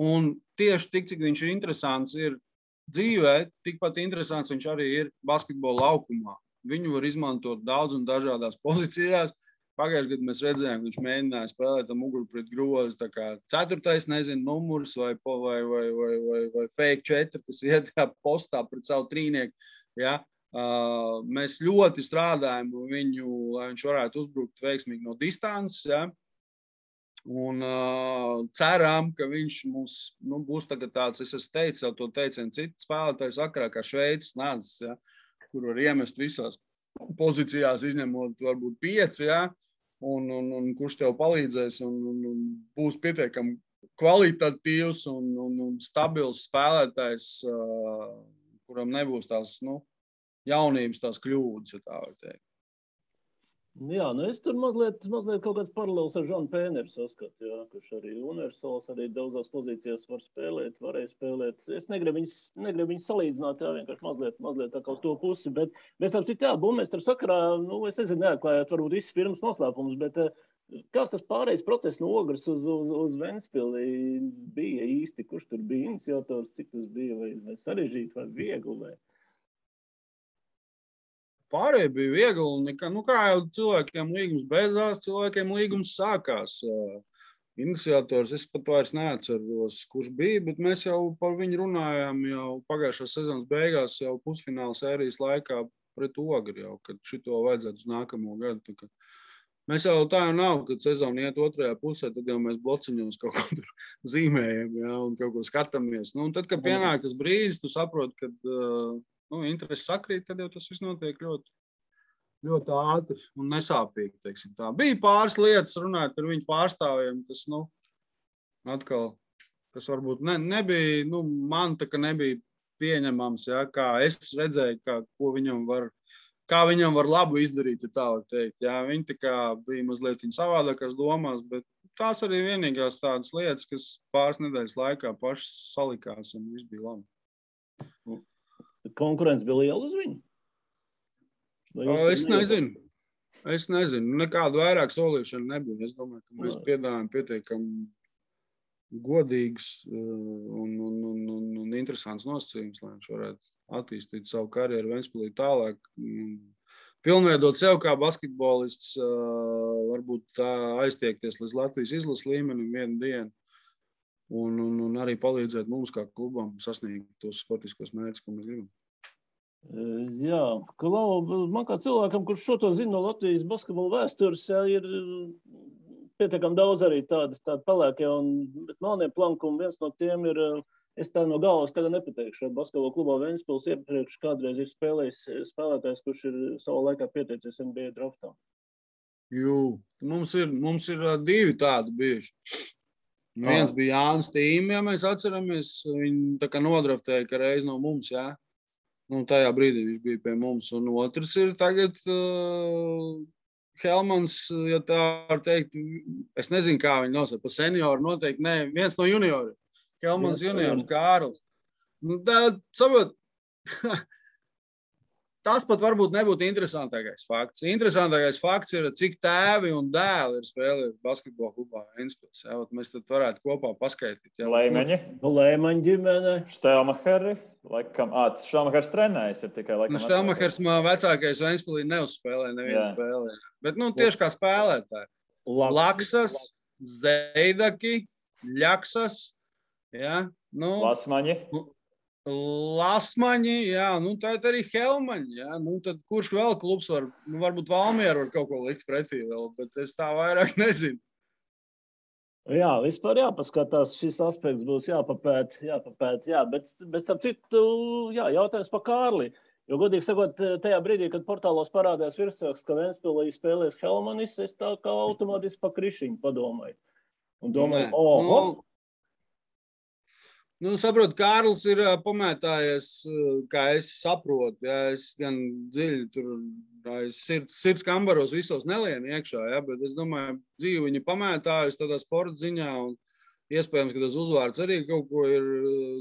Un tieši tik, cik viņš ir interesants, ir dzīvē, tikpat interesants viņš arī ir basketbola laukumā. Viņu var izmantot daudz un dažādās pozīcijās. Pagājušajā gadā mēs redzējām, ka viņš mēģināja spēlēt ar muguru pret grozi, tā kā 4. numurs vai fake 4, kas iet postā pret savu trīnieku. Ja? Mēs ļoti strādājam viņu, lai viņš varētu uzbrukt veiksmīgi no distances. Ja? Un ceram, ka viņš mums būs tagad tāds, es esmu teicis jau to teicienu citu spēlētāju sakarā, kā Šveices nācis, ja, kur var iemest visās pozīcijās, izņemot varbūt 5, ja, un kurš tev palīdzēs un būs pietiekami kvalitatīvs un stabils spēlētājs, kuram nebūs tās jaunības, tās kļūdas, ja tā var teikt. Jā, es tur mazliet kaut kāds paralēls ar Žanu Pēneru saskatu, jā, kurš arī universāls, arī daudzās pozīcijās varēja spēlēt. Es negribu viņus salīdzināt, jā, vienkārši mazliet tā kā uz to pusi, bet mēs ar citu, jā, Būmeistera sakarā, es nezinu, neatklājāt varbūt visas firmas noslēpumus, bet kāds tas pārējais process no Ogres uz Ventspili bija īsti, kurš tur bija iniciators, cik tas bija, vai sarežģīti, vai viegli, vai... Pārējie bija viegli, un kā jau cilvēkiem līgums beidzās, cilvēkiem līgums sākās. Iniciators, es pat vairs neatceros, kurš bija, bet mēs jau par viņu runājām jau pagājušās sezonas beigās, jau pusfināla sērijas laikā pret Ogri, jau, kad šito vajadzētu uz nākamo gadu. Mēs jau tā jau nav, kad sezona iet otrajā pusē, tad jau mēs blociņos kaut ko tur zīmējam, ja, un kaut ko skatāmies. Un tad, kad pienāk tas brīdis, tu saproti, kad interesi sakrīt, tad jau tas viss notiek ļoti ātri un nesāpīgi, teiksim tā. Bija pāris lietas runāt ar viņu pārstāvjiem, kas, atkal, kas varbūt nebija, man tā kā nebija pieņemams, ja, kā es redzēju, kā viņam var labu izdarīt, ja tā var teikt. Ja. Viņi tā kā bija mazliet savādākās domās, bet tās arī vienīgās tādas lietas, kas pāris nedēļas laikā pašas salikās un viss bija labi. Konkurence bija liela uz viņu? Es nezinu. Nekādu vairāk solīšanu nebija. Es domāju, ka mēs piedāvājam pietiekami godīgus un interesants nosacījums, lai viņš varētu attīstīt savu karjeru Ventspilī tālāk. Pilnveidot sev kā basketbolists, varbūt aiztiekties līdz Latvijas izlases līmenim vienu dienu. un arī palīdzēt mums kā klubam sasniegt tos sportiskos mērķus, ko mēs gribam. Jā, Klau, man kā cilvēkam, kurš šo to zina no Latvijas basketbola vēstures, jā, ir pietiekami daudz arī tādi pelēkie un melnie plankumi. Viens no tiem ir, es tā no galvas tagad nepateikšu, basketbola klubā Ventspils iepriekš kādreiz ir spēlējis spēlētājs, kurš ir savā laikā pieteicies NBA draftā. Jū, mums ir 2 tādi bijuši. Viens bija Jānis Tīm, ja mēs atceramies, viņi tā kā nodraftēja, ka reiz no mums, jā. Nu, tajā brīdī viņš bija pie mums. Un otrs ir tagad Helmans, ja tā var teikt, es nezinu, kā viņi nosauc, pa senioru noteikti, ne, viens no junioriem. Helmans juniors, Kārls. Nu, tā, saprot, tas pat varbūt nebūtu interesantākais fakts. Interesantākais fakts ir, cik tēvi un dēli ir spēlējuši basketbola klubā Ventspils. Mēs tad varētu kopā paskaidīt. Leimeņi. Leimeņi ģimene. Štelmacheri. Laikam, Štelmachers trenējs ir tikai laikam. Štelmachers vecākais Ventspilī neuzspēlē nevienu spēlē. Bet, tieši kā spēlētāji. Laksas, Zeidaki, Ļaksas, jā. Lasmaņi. Lasmaņi, jā, tā arī Helmaņi, jā, tad kurš vēl klubs var, varbūt Valmiera var kaut ko likt pretī vēl, bet es tā vairāk nezinu. Jā, vispār jāpaskatās, šis aspekts būs jāpapēt, jā, bet ap citu, jā, jautājums par Kārli, jo godīgi sakot, tajā brīdī, kad portālos parādījās virsraksts, ka Ventspilī spēlēs Helmanis, es tā kā automātiski pa krišiņu padomāju. Un domāju, saprot, Kārlis ir pamētājies, kā es saprotu, ja, es gan dziļi tur sirds kambaros visos nelienu iekšā, ja, bet es domāju, dzīvi viņi pamētājusi tādā sporta ziņā, un iespējams, ka tas uzvārds arī kaut ko ir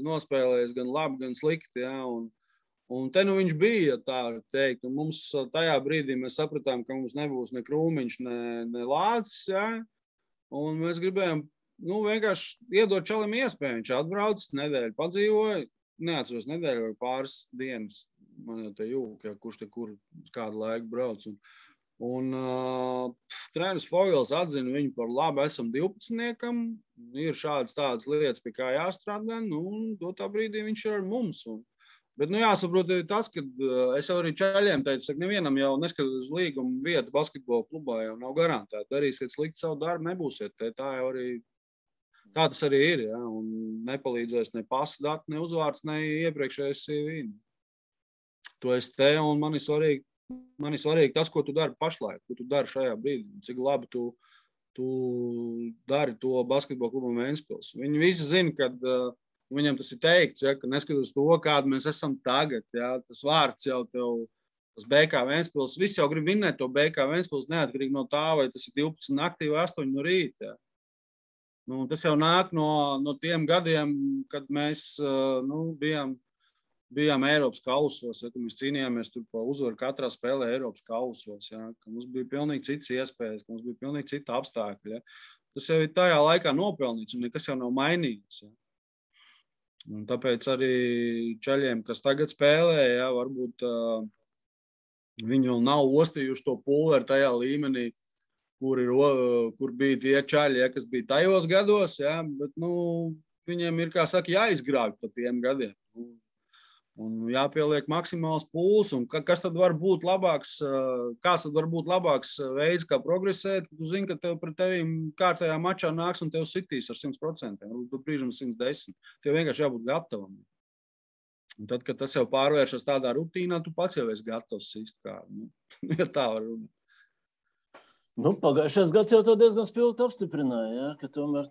nospēlējis gan labi, gan slikti, ja, un te viņš bija, tā teikt, un mums tajā brīdī mēs sapratām, ka mums nebūs ne Krūmiņš, ne Lācis, ja, un mēs gribējām vienkārši iedot čalim iespēju. Viņš atbrauc, nedēļu padzīvoja, neatceros nedēļu vai pāris dienas, man jau te jūk, ja, kurš te kur kādu laiku brauc. Un treneris Fogels atzina viņu par labu, esam 12-niekam, ir tādas lietas, pie kā jāstrādā, un dotā brīdī viņš ir ar mums. Bet jāsaprot tas, ka es jau arī čaļiem teicu, ka nevienam jau neskatās uz līgumu vietu basketbola klubā jau nav garantēta. Darīsiet slikti savu darbu, nebūsiet. Tā tas arī ir, ja, un nepalīdzēs ne pasas dati, ne uzvārds, ne iepriekšējais CV. To es te, un man ir svarīgi tas, ko tu dari pašlaik, ko tu dari šajā brīdī, cik labi tu dari to basketbola klubam Ventspils. Viņi visi zina, ka viņam tas ir teikts, ja, ka neskatoties to, kādu mēs esam tagad, ja, tas vārds jau tev, tas BK Ventspils, visi jau grib vinnēt to BK Ventspils neatkarīgi no tā, vai tas ir 12 naktī vai 8 no rīta. Ja. Tas jau nāk no tiem gadiem, kad mēs bijām Eiropas kausos, ja, kad mēs cīnījāmies tur pa uzvaru katrā spēlē Eiropas kausos, ja, ka mums bija pilnīgi citas iespējas, ka mums bija pilnīgi cita apstākļi. Ja. Tas jau ir tajā laikā nopelnīts un nekas jau nav mainīgs. Ja. Un tāpēc arī čaļiem, kas tagad spēlē, ja, varbūt viņi vēl nav ostījuši to pulveri tajā līmenī, kur bija tie čaļi, ja, kas bija tajos gados, ja, bet viņiem ir, kā saka, jāizgrābj pa tiem gadiem. Un jāpieliek maksimāls pūls, un kas tad var būt labāks, kāds tad var būt labāks veids, kā progresēt, tu zini, ka tev pret tevīm kārtējā mačā nāks un tev sitīs ar 100%, varbūt brīžam 110%. Tev vienkārši jābūt gatavam. Un tad, kad tas jau pārvēršas tādā rutīnā, tu pats jau esi gatavs sist kādu. Ja tā var runāt. Pagājušais gads jau to diezgan spilgti apstiprināja, ja, ka tomēr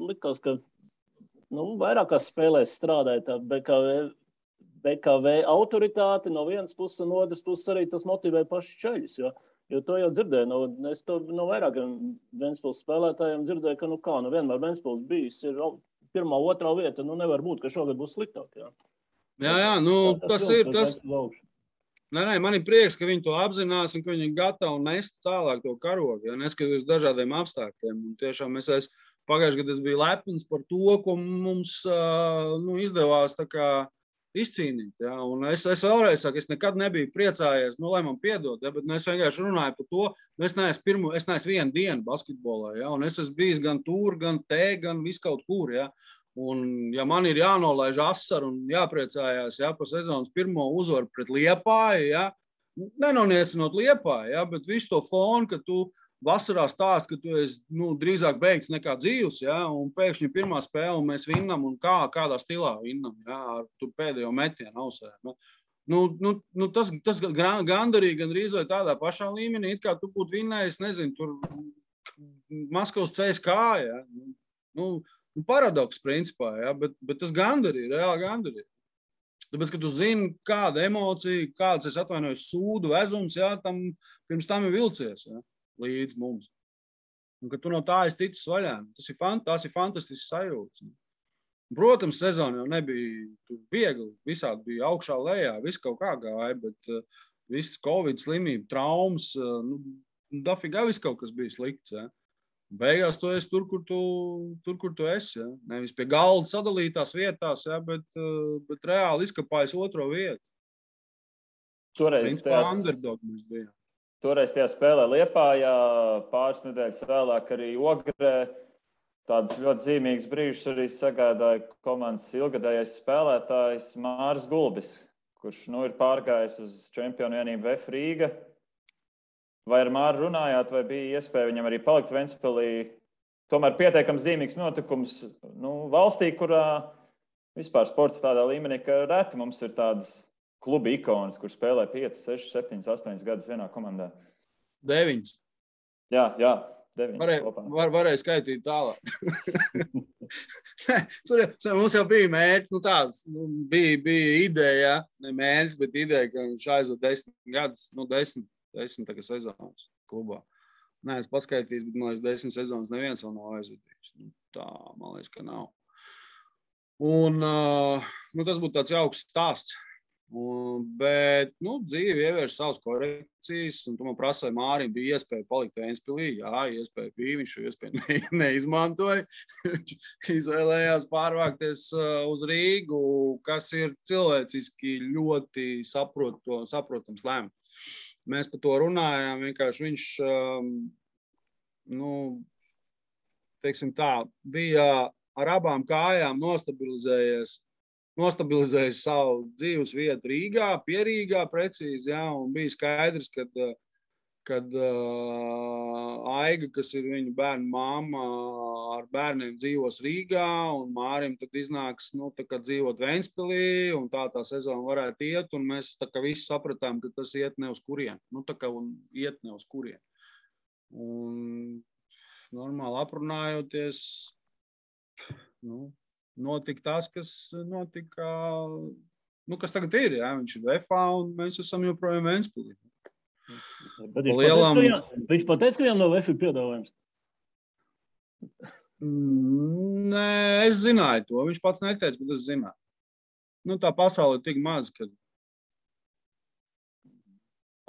likās, ka vairākās spēlēs strādāja tā BKV autoritāte no vienas puses un otras puses arī tas motivē paši čaļus, jo to jau dzirdēju, es to no vairākiem Ventspils spēlētājiem dzirdēju, ka vienmēr Ventspils bijis ir pirmā, otrā vieta, nevar būt, ka šogad būs sliktāk, jā. Jā, tas ir tas. Nē, man ir prieks, ka viņi to apzinās un ka viņi ir gatavi nest tālāk to karogu, ja neskatoties dažādiem apstākļiem. Un tiešām pagājušajā gadā es biju lepns par to, ko mums izdevās tā kā izcīnīt. Ja? Un es vēlreiz saku, es nekad nebiju priecājies, lai man piedod, ja? Bet es vienkārši runāju par to, es neesmu vienu dienu basketbolā, ja? Un es esmu bijis gan tur, gan te, gan viskaut kur. Ja? Un, ja man ir jānolaiž asaru un jāpriecājās par sezonas pirmo uzvaru pret Liepāju, ja? Nenoniecinot Liepāju, ja? Bet visu to fonu, ka tu vasarā stāst, ka tu esi drīzāk beigts nekā dzīvs, ja? Un pēkšņi pirmā spēle un mēs vinnam un kādā stilā vinnam, ja? Ar tur pēdējo metienu ausē. Tas gandarīgi gandrīz vai tādā pašā līmenī, it kā tu būtu vinnējis, nezinu, tur Maskavas CSKA, ja? Paradoks principā, ja? Bet tas gandarīgi, reāli gandarīgi. Tāpēc, ka tu zini, kāda emocija, kāds, es atvainojos, sūdu vezums, ja? Pirms tam ir vilcies, ja? Līdz mums. Un, ka tu no tā esi ticis vaļā. Tas ir fantastisks sajūts. Protams, sezona jau nebija viegli. Visādi bija augšā lejā, viss kaut kā gāja, bet viss Covid slimība, traumas, dafigā viss kaut kas bija slikts. Ja. Beigās tu esi tur, kur tu esi. Ja. Nevis pie galda sadalītās vietās, ja, bet reāli izkapājas otro vietu. Toreiz tajā spēlē Liepājā, pāris nedēļas vēlāk arī Ogrē. Tādus ļoti zīmīgus brīžus arī sagādāja komandas ilgadējais spēlētājs Māris Gulbis, kurš ir pārgājis uz čempionu vienību VF Rīga. Vai ar Māru runājāt, vai bija iespēja viņam arī palikt Ventspilī? Tomēr pietiekams zīmīgs notikums valstī, kurā vispār sports tādā līmenī, ka reti mums ir tādas kluba ikonas, kur spēlē 5, 6, 7, 8 gadus vienā komandā. 9. Jā, 9. Varēja skaitīt tālāk. Mums jau bija mērķi, tāds, bija ideja, ne mērķis, bet ideja, ka viņš aizved 10 gadus, 10 tagad sezonas klubā. Nē, es paskaitījis, bet man liekas 10 sezonas neviens vēl nav aizvedījis. Tā, man liekas, ka nav. Un tas būtu tāds jauks stāsts. Bet dzīve ievieš savas korekcijas, un tu man prasīji, Mārim bija iespēja palikt Ventspilī. Jā, iespēja bija, viņš šo iespēju neizmantoja. Viņš izvēlējās pārvākties uz Rīgu, kas ir cilvēciski ļoti saprotams lēmums. Mēs par to runājām, vienkārši viņš, teiksim tā, bija ar abām kājām nostabilizējis savu dzīves vietu Rīgā, pie Rīgā precīzi, ja, un bija skaidrs, kad Aiga, kas ir viņa bērnu mamma, ar bērniem dzīvos Rīgā, un Mārim tad iznāks, tā kā dzīvot Ventspilī, un tā sezona varētu iet, un mēs tā kā visi sapratām, ka tas iet ne uz kurien. Tā kā iet ne uz kurien. Un normāli aprunājoties, notika tas, kas notika, kas tagad ir, jā, viņš ir VFA un mēs esam joprojām Ventspilī. Viņš pateica, ka viņam no VF ir piedāvājums? Nē, es zināju to, viņš pats neteica, bet es zināju. Tā pasaule ir tik maz, ka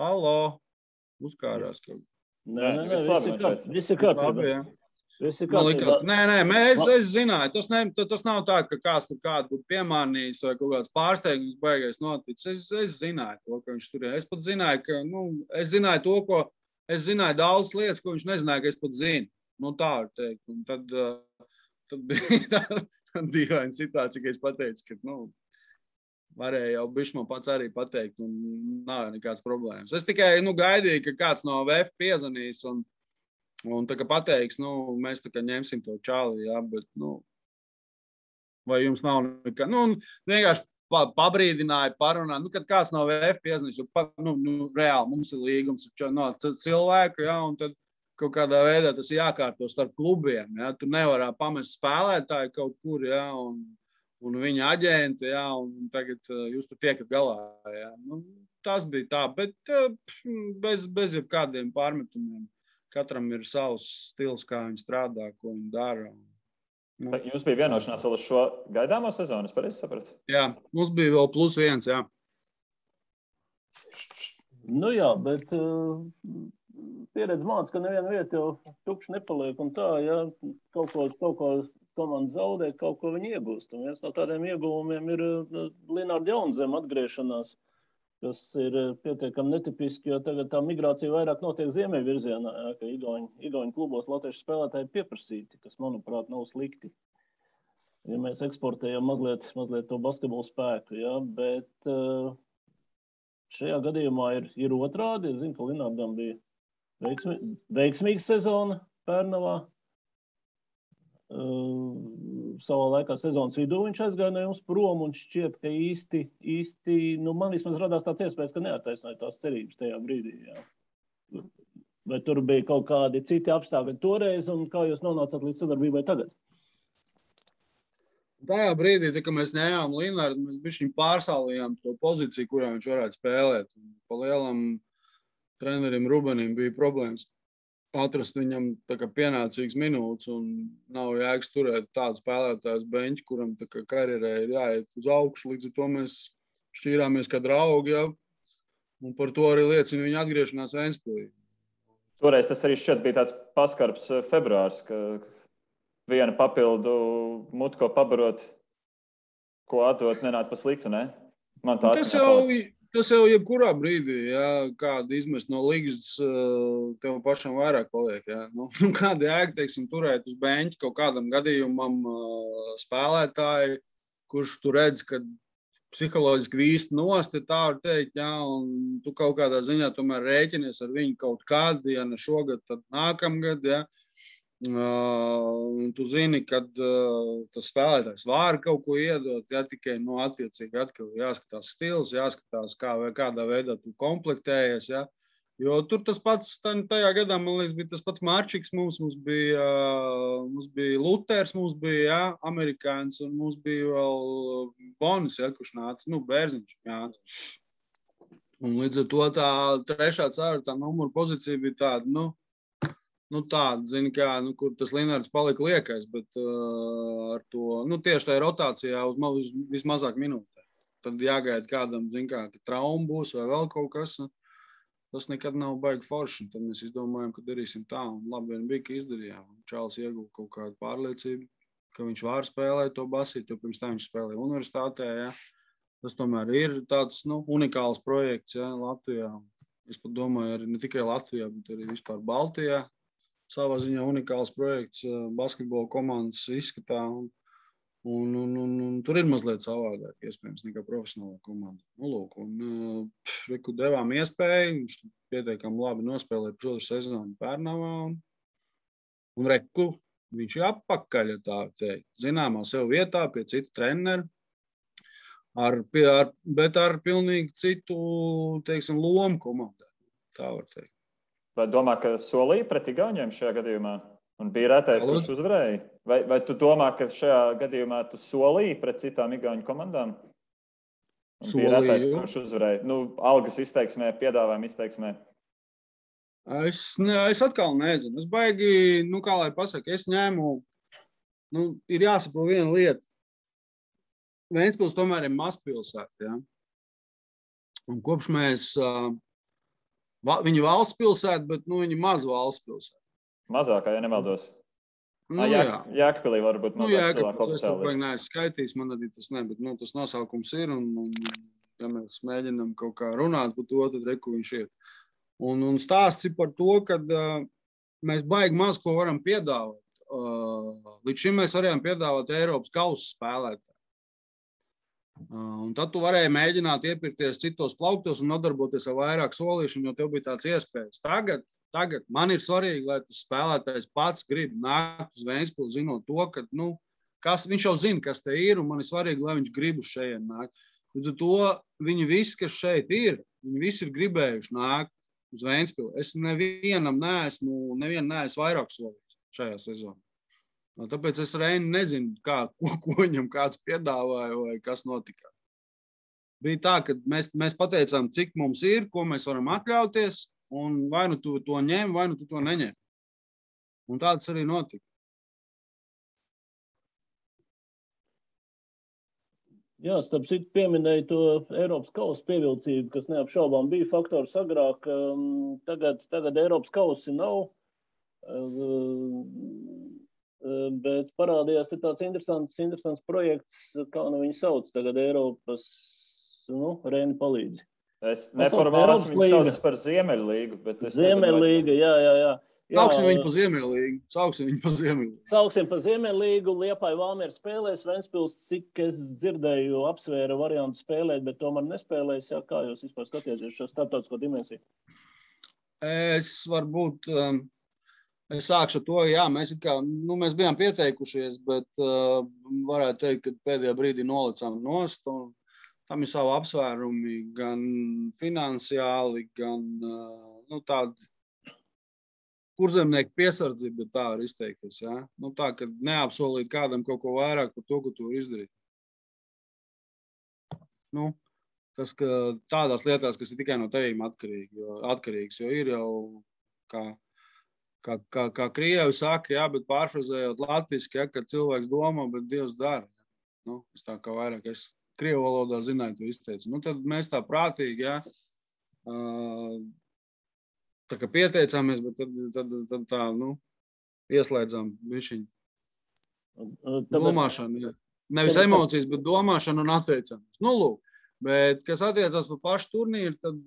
halo, uzkārās kaut. Nē, viss ir kārtībā. Nē, es zināju. Tas nav tā, ka kāds tur kādu būtu piemānījis vai kaut kāds pārsteigums baigais noticis. Es zināju to, ka viņš tur ir. Es pat zināju, ka, es zināju to, es zināju daudz lietas, ko viņš nezināja, ka es pat zinu. Tā var teikt. Un tad bija tā dīvaina situācija, ka es pateicu, ka, varēja jau bišķi man pats arī pateikt un nav nekāds problēmas. Es tikai, gaidīju, ka kāds no VF piezvanīs un tā kā pateiks, mēs tā kā ņemsim to čāli, jā, bet, vai jums nav nekā, vienkārši pabrīdināja, parunā, kad kāds no VF piezvanīs, reāli mums ir līgums ar cilvēku, jā, un tad kaut kādā veidā tas jākārto starp klubiem, jā, tu nevarā pamest spēlētāju kaut kur, jā, un viņa aģenti, jā, un tagad jūs tur tiekat galā, jā, tas bija tā, bet bez jebkādiem pārmetumiem. Katram ir savs stils, kā viņi strādā, ko viņi dara. Jums bija vienošanās vēl uz šo gaidāmo sezonu, es pareizi sapratu? Jā, mums bija vēl +1, jā. Jā, bet pieredze māca, ka neviena vieta jau tukša nepaliek un tā, ja kaut ko komanda zaudē, kaut ko viņi iegūst. Un viens no tādiem ieguvumiem ir Linārda Jaunzema atgriešanās, kas ir pietiekami netipiski, jo tagad tā migrācija vairāk notiek ziemeļvirzienā, ka igauņu klubos latviešu spēlētāji pieprasīti, kas, manuprāt, nav slikti. Ja mēs eksportējam mazliet to basketbolu spēku, ja, bet šajā gadījumā ir otrādi. Es zinu, ka Linārdam bija veiksmīga sezona Pērnavā. Savā laikā sezonas vidū viņš aizgāja no jums prom un šķiet, ka īsti man vismaz radās tāds iespējas, ka neattaisnoja tās cerības tajā brīdī. Jā. Vai tur bija kaut kādi citi apstākļi toreiz un kā jūs nonācāt līdz sadarbībai tagad? Tajā brīdī, kad mēs ņēmām Linārdu, mēs bišķiņ pārsālījām to pozīciju, kurā viņš varētu spēlēt. Pa lielam trenerim Rubenim bija problēmas atrast viņam tā kā pienācīgas minūtes un nav jēgas turēt tādu spēlētājus beņķi, kuram tā kā karjerē ir jāiet uz augšu. Līdz ar to mēs šķīrāmies kā draugi, ja? Un par to arī liecina viņa atgriešanās Ventspilī. Toreiz tas arī šķiet bija tāds paskarbs februārs, ka viena papildu mutu, ko pabarot, ko atdot, nenāca pa sliktu, ne? Man tā Tas jau jebkurā brīdī, ja, kādu izmest no līgas, tev pašam vairāk paliek. Ja. Kāda jēga, teiksim, turēt uz beņķi kaut kādam gadījumam spēlētāji, kurš tu redz, ka psiholoģiski vīst nost, tā var teikt, ja, un tu kaut kādā ziņā tomēr rēķinies ar viņu kaut kādu, ja ne šogad, tad nākamgad, ja. Un tu zini, kad tas spēlētājs var kaut ko iedot, ja tikai attiecīgi atkal jāskatās stils, jāskatās, kādā veidā tu komplektējies. Ja. Jo tur tas pats, tajā gadā, man liekas, bija tas pats Marčiks, mums bija Luters, mums bija ja, amerikāns, un mums bija vēl Bonis, ja, kurš nāca, Bērziņš. Ja. Un līdz ar to tā 3. 4. numura pozīcija bija tāda, tāda, zini, kā, kur tas Linārds palika liekais, bet ar to, tieši tajā rotācijā uz vismazāk minūtē. Tad jāgaida kādam, zini, kā trauma būs vai vēl kaut kas. Tas nekad nav baigi forši. Tad mēs izdomājam, ka darīsim tā. Un labi vien bija, ka izdarījām. Čāls ieguva kaut kādu pārliecību, ka viņš var spēlēt to basīt, jo pirms tā viņš spēlēja universitātē. Ja. Tas tomēr ir tāds, unikāls projekts, ja, Latvijā. Es pat domāju, arī ne tikai Latvijā, bet arī vispār Baltijā. Savā ziņā unikāls projekts basketbola komandas izskatā, un tur ir mazliet savādāk, iespējams, nekā profesionālā komanda. Reku devām iespēju, viņš pietiekami labi nospēlēja pusotru sezonu Pērnavā, un reku, viņš ir apakaļ, ja tā teikt, zināmā sev vietā pie citu treneru, bet ar pilnīgi citu, teiksim, lomu komandā, tā var teikt. Vai domā, ka solīja pret igauņiem šajā gadījumā? Un bija retais, kurš uzvarēja? Vai tu domā, ka šajā gadījumā tu solīji pret citām igauņu komandām? Un bija retais, kurš uzvarēja? Algas izteiksmē, piedāvājuma izteiksmē. Es atkal nezinu. Es baigi, kā lai pasaka, es ņēmu, ir jāsaprot viena lieta. Ventspils tomēr ir mazpilsēta, ja? Un kopš mēs... Viņa valsts pilsēta, bet viņi maz valsts pilsēta. Mazākā, ja nemaldos. Jēkabpilī varbūt mazāk cilvēku oficiāli. Es to baigi neesmu skaitījis, man arī tas ne, bet tas nosaukums ir, un ja mēs mēģinām kaut kā runāt par to, tad reku viņš ir. Un stāsts ir par to, ka mēs baigi maz ko varam piedāvāt. Līdz šim mēs varējām piedāvāt Eiropas kausa spēlētāju. Un tad tu varēji mēģināt iepirkties citos plauktos un nodarboties ar vairāk solīšanu, jo tev bija tāds iespējas. Tagad man ir svarīgi, lai tas spēlētājs pats grib nākt uz Ventspili, zinot to, ka viņš jau zina, kas te ir, un man ir svarīgi, lai viņš grib uz šeit nākt. Līdz ar to viņi visi, kas šeit ir, viņi visi ir gribējuši nākt uz Ventspili. Es nevienu neesmu vairāk solījis šajā sezonā. Tāpēc es Reini nezinu, ko viņam kāds piedāvāja vai kas notika. Bija tā, ka mēs pateicām, cik mums ir, ko mēs varam atļauties, un vai nu tu to ņem, vai nu tu to neņem. Un tāds arī notika. Jā, starp citu pieminēju to Eiropas kausa pievilcību, kas neapšaubām bija faktors agrāk. Tagad Eiropas kausi nav. bet parādījās tāds interesants projekts, kā viņu sauc tagad Eiropas, Reini palīdzi. Es neformāli esmu viņu sauc par Ziemeļlīgu, bet es Ziemeļlīga, jā. Sauksim viņu pa Ziemeļlīgu. Sauksim pa Ziemeļlīgu, Liepāja Valmiera spēlēs, Ventspils, cik es dzirdēju, apsvēra variantu spēlēt, bet tomēr nespēlēs. Jā, kā jūs vispār skatieties šo starptautisko dimensiju? Es sākšu to, jā, mēs bijām pieteikušies, bet varētu teikt, ka pēdējā brīdī nolicām nost, un tam ir savi apsvērumi, gan finansiāli, gan tādi kurzemnieku piesardzība, bet tā var izteikties, jā. Tā, ka neapsolīt kādam kaut ko vairāk par to, ko tu izdarīt. Tas, ka tādās lietās, kas ir tikai no tevīm atkarīgs, jo ir jau, kā krievi saka, jā, bet pārfrazējot latviski, jā, ka cilvēks domā, bet Dievs dara. Es tā kā vairāk, es krievu valodā zināju, to izteicu. Tad mēs tā prātīgi, jā, tā kā pieteicāmies, bet tad tā, ieslēdzām višiņu. Domāšanu, jā. Nevis emocijas, bet domāšanu un atteicāmies. Lūk, bet, kas attiecās par pašu turnīru, tad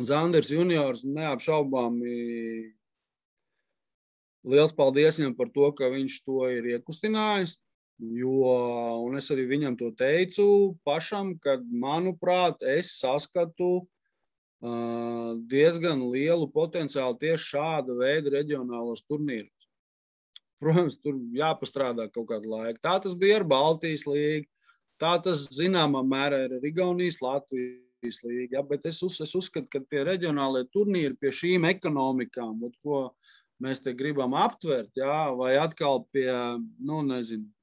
Zanders juniors neapšaubāmi liels paldies viņam par to, ka viņš to ir iekustinājis, un es arī viņam to teicu pašam, kad, manuprāt, es saskatu diezgan lielu potenciālu tieši šāda veida reģionālos turnīros. Protams, tur jāpastrādā kaut kādu laiku. Tā tas bija ar Baltijas līgu, tā tas zināmā mērā ir ar Igaunijas Latvijas līgu, bet es uzskatu, ka tie reģionālie turnīri pie šīm ekonomikām, ko mēs te gribam aptvert, jā, vai atkal pie,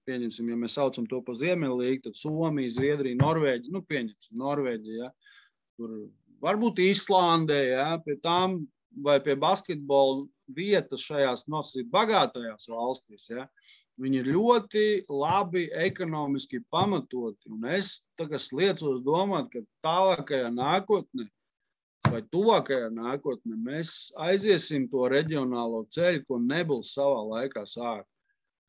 pieņemsim, ja mēs saucam to pa Ziemeļlīgu, tad Somija, Zviedrija, Norvēģija, pieņemsim, Norvēģija, jā, tur varbūt Īslandē, ja, pie tām vai pie basketbola vietas šajās nosacīt bagātajās valstīs. Ja, viņi ir ļoti labi ekonomiski pamatoti. Un es tagad liecos domāt, ka tālākajā nākotnē vai tuvākajā nākotnē mēs aiziesim to reģionālo ceļu, ko Nebuls savā laikā sāka.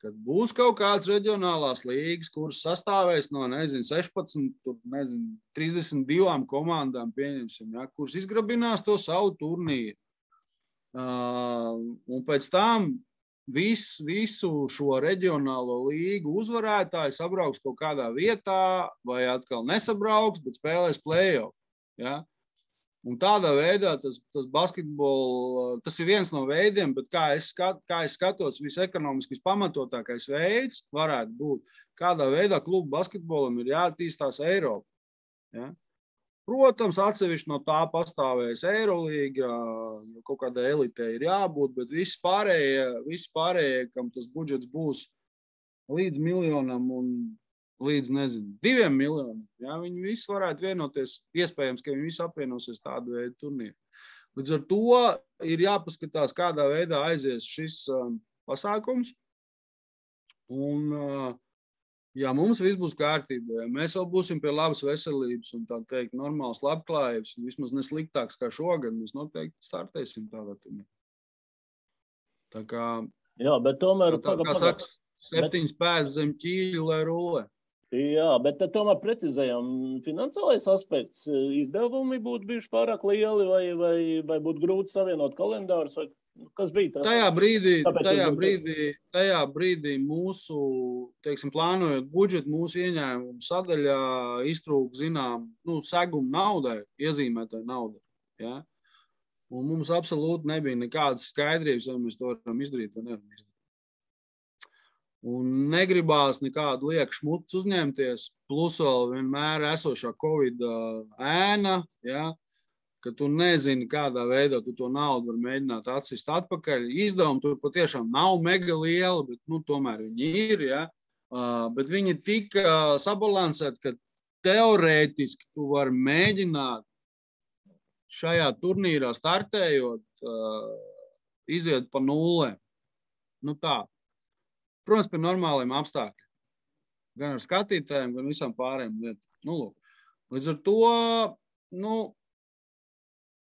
Kad būs kaut kāds reģionālās līgas, kuras sastāvēs no, 16, 32 komandām, pieņemsim, ja, kuras izgrabinās to savu turnīru. Un pēc tam visu šo reģionālo līgu uzvarētāji sabrauks kaut kādā vietā, vai atkal nesabrauks, bet spēlēs play-off. Ja. Un tādā veidā tas basketbols, tas ir viens no veidiem, bet kā es skatos, visekonomiski pamatotākais veids varētu būt, kādā veidā klubu basketbolam ir jāattīstās Eiropā. Ja? Protams, atsevišķi no tā pastāvēs Eirolīga, jo kaut kādā elitē ir jābūt, bet visi pārējie, kam tas budžets būs līdz 1 miljonam un līdz, 2 miljoniem. Ja, viņi visi varētu vienoties, iespējams, ka viņi visi apvienosies tādu veidu turnīru. Līdz ar to ir jāpaskatās, kādā veidā aizies šis pasākums. Un, ja mums viss būs kārtībā, ja mēs vēl būsim pie labas veselības un tā teikt normāls labklājības, un vismaz nesliktāks kā šogad, mēs noteikti startēsim tādā turnīrā. Tā kā, jā, bet tomēr, kā saks, 7 pēdas zem ķīļu, lai rulē. Jā, bet tad tomēr precizējam, finansiālais aspekts, izdevumi būtu bijuši pārāk lieli vai būtu grūti savienot kalendārus, vai kas bija tas? Tajā brīdī mūsu, teiksim, plānojot budžetu, mūsu ieņēmumu sadaļā iztrūk, segumu naudai, iezīmētai naudai. Ja? Un mums absolūti nebija nekādas skaidrības, vai mēs to varam izdarīt vai nevaram izdarīt. Un negribās nekādu lieku šmutus uzņemties, plus vēl vienmēr esošā Covid ēna, ja, ka tu nezini, kādā veidā tu to naudu var mēģināt atsist atpakaļ. Izdevumi tur patiešām nav mega liela, bet tomēr viņi ir. Ja, bet viņi ir tik sabalansēti, ka teorētiski tu vari mēģināt šajā turnīrā startējot, iziet pa nulēm. Tā. Protams, pie normāliem apstākļiem. Gan ar skatītājiem, gan visām pārējām lietām. Līdz ar to,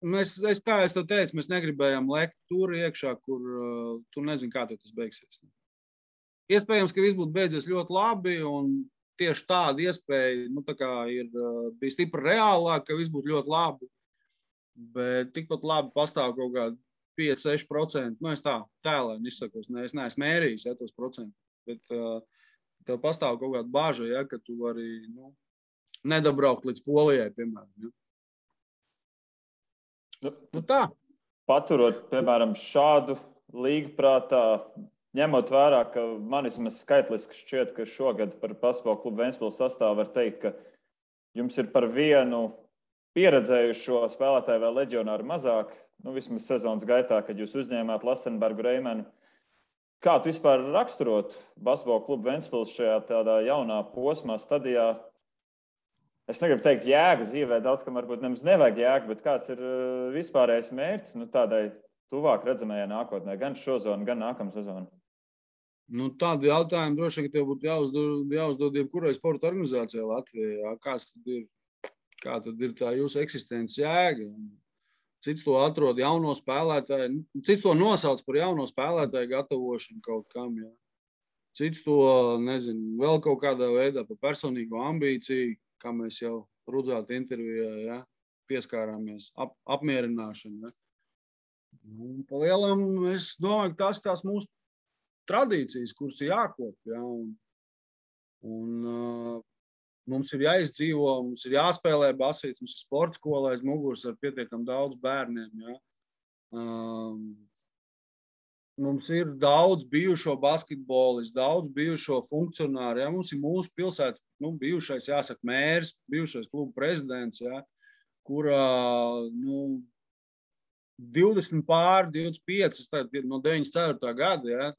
kā es tev teicu, mēs negribējām lekt tur iekšā, kur tu nezini, kā tas beigsies. Iespējams, ka viss būtu beidzies ļoti labi, un tieši tāda iespēja bija stipri reālāk, ka viss būtu ļoti labi. Bet tikpat labi pastāv kaut kādi 5-6%. Es tā tēlēni izsakos, es neesmu mērījis tos procentus. Bet tev pastāv kaut kāda bāža, ka tu vari nedabraukt līdz Polijai, piemēram. Tā. Paturot, piemēram, šādu līgu prātā, ņemot vērā, ka man vismaz skaitliski šķiet, ka šogad par Basketbola klubu Ventspils sastāvu var teikt, ka jums ir par vienu pieredzējušo spēlētāju vēl leģionāru mazāk, vismaz sezonas gaitā, kad jūs uzņēmāt Lasenbergu Reimenu. Kā tu vispār raksturot Basketbola klubu Ventspils šajā tādā jaunā posmā, stadijā? Es negribu teikt jēgu dzīvē, daudz, kam varbūt nemaz nevajag jēgu, bet kāds ir vispārējais mērķis tādai tuvāk redzamajai nākotnē, gan šozonu, gan nākamā sezonu? Tādu jautājumu droši vien, ka tev būtu jāuzdod jebkurai sporta organizācijai Latvijā. Kā tad ir tā jūsu eksistences jēga? Cits to atrod jauno spēlētāju, cits to nosauc par jauno spēlētāju gatavošanu kaut kam. Jā. Cits to, nezinu, vēl kaut kādā veidā par personīgo ambīciju, kā mēs jau Rudzāta intervijā pieskārāmies, apmierināšanu. Pa lielam es domāju, ka tās mūsu tradīcijas, kuras ir jākop. Ja, un mums ir jāizdzīvo, mums ir jāspēlē basīts, mums ir sporta skola aiz muguras ar pietiekam daudz bērniem. Ja. Mums ir daudz bijušo basketbolistu, daudz bijušo funkcionāru. Ja. Mums ir mūsu pilsētas bijušais, jāsaka, mērs, bijušais klubu prezidents, ja, kurā 20 pār 25, no 94. gada, ja,